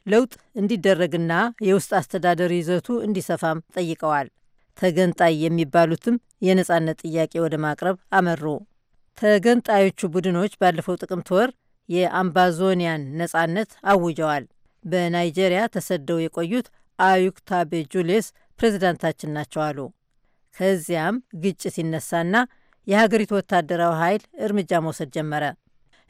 ለውጥ እንዲደረግና የውስጥ አስተዳደር ይዘቱ እንዲሰፋም ጠይቀዋል። ተገንጣይ የሚባሉትም የነጻነት ጥያቄ ወደ ማቅረብ አመሩ። ተገንጣዮቹ ቡድኖች ባለፈው ጥቅምት ወር የአምባዞኒያን ነጻነት አውጀዋል። በናይጄሪያ ተሰደው የቆዩት አዩክ ታቤ ጁሌስ ፕሬዝዳንታችን ናቸው አሉ። ከዚያም ግጭት ይነሳና የሀገሪቱ ወታደራዊ ኃይል እርምጃ መውሰድ ጀመረ።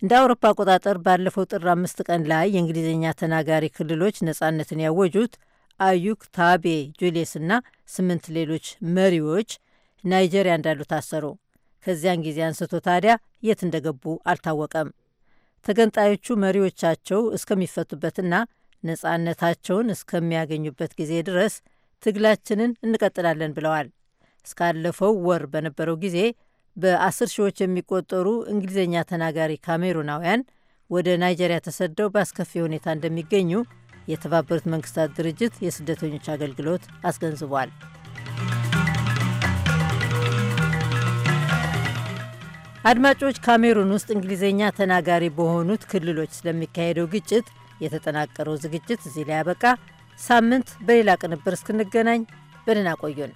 እንደ አውሮፓ አቆጣጠር ባለፈው ጥር 5 ቀን ላይ የእንግሊዝኛ ተናጋሪ ክልሎች ነጻነትን ያወጁት አዩክ ታቤ ጁሌስና 8 ሌሎች መሪዎች ናይጄሪያ እንዳሉ ታሰሩ። ከዚያን ጊዜ አንስቶ ታዲያ የት እንደገቡ አልታወቀም። ተገንጣዮቹ መሪዎቻቸው እስከሚፈቱበትና ነጻነታቸውን እስከሚያገኙበት ጊዜ ድረስ ትግላችንን እንቀጥላለን ብለዋል። እስካለፈው ወር በነበረው ጊዜ በ10 ሺዎች የሚቆጠሩ እንግሊዝኛ ተናጋሪ ካሜሩናውያን ወደ ናይጄሪያ ተሰደው በአስከፊ ሁኔታ እንደሚገኙ የተባበሩት መንግስታት ድርጅት የስደተኞች አገልግሎት አስገንዝቧል። አድማጮች፣ ካሜሩን ውስጥ እንግሊዝኛ ተናጋሪ በሆኑት ክልሎች ስለሚካሄደው ግጭት የተጠናቀረው ዝግጅት እዚህ ላይ ያበቃ። ሳምንት በሌላ ቅንብር እስክንገናኝ በደህና ቆዩን።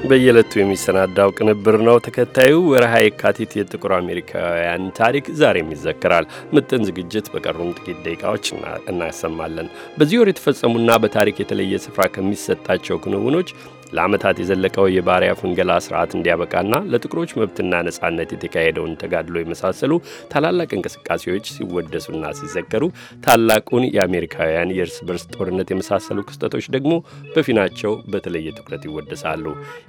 በየዕለቱ የሚሰናዳው ቅንብር ነው። ተከታዩ ወርሃ የካቲት የጥቁር አሜሪካውያን ታሪክ ዛሬም ይዘከራል። ምጥን ዝግጅት በቀሩም ጥቂት ደቂቃዎች እናሰማለን። በዚህ ወር የተፈጸሙና በታሪክ የተለየ ስፍራ ከሚሰጣቸው ክንውኖች ለዓመታት የዘለቀው የባሪያ ፍንገላ ስርዓት እንዲያበቃና ለጥቁሮች መብትና ነጻነት የተካሄደውን ተጋድሎ የመሳሰሉ ታላላቅ እንቅስቃሴዎች ሲወደሱና ሲዘከሩ፣ ታላቁን የአሜሪካውያን የእርስ በርስ ጦርነት የመሳሰሉ ክስተቶች ደግሞ በፊናቸው በተለየ ትኩረት ይወደሳሉ።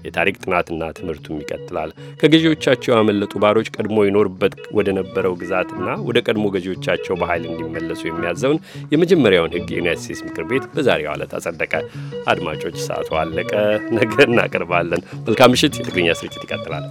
የታሪክ ጥናትና ትምህርቱም ይቀጥላል። ከገዢዎቻቸው ያመለጡ ባሮች ቀድሞ ይኖርበት ወደ ነበረው ግዛትና ወደ ቀድሞ ገዢዎቻቸው በኃይል እንዲመለሱ የሚያዘውን የመጀመሪያውን ሕግ የዩናይትድ ስቴትስ ምክር ቤት በዛሬው ዕለት አጸደቀ። አድማጮች፣ ሰዓቱ አለቀ። ነገ እናቀርባለን። መልካም ምሽት። የትግርኛ ስርጭት ይቀጥላል።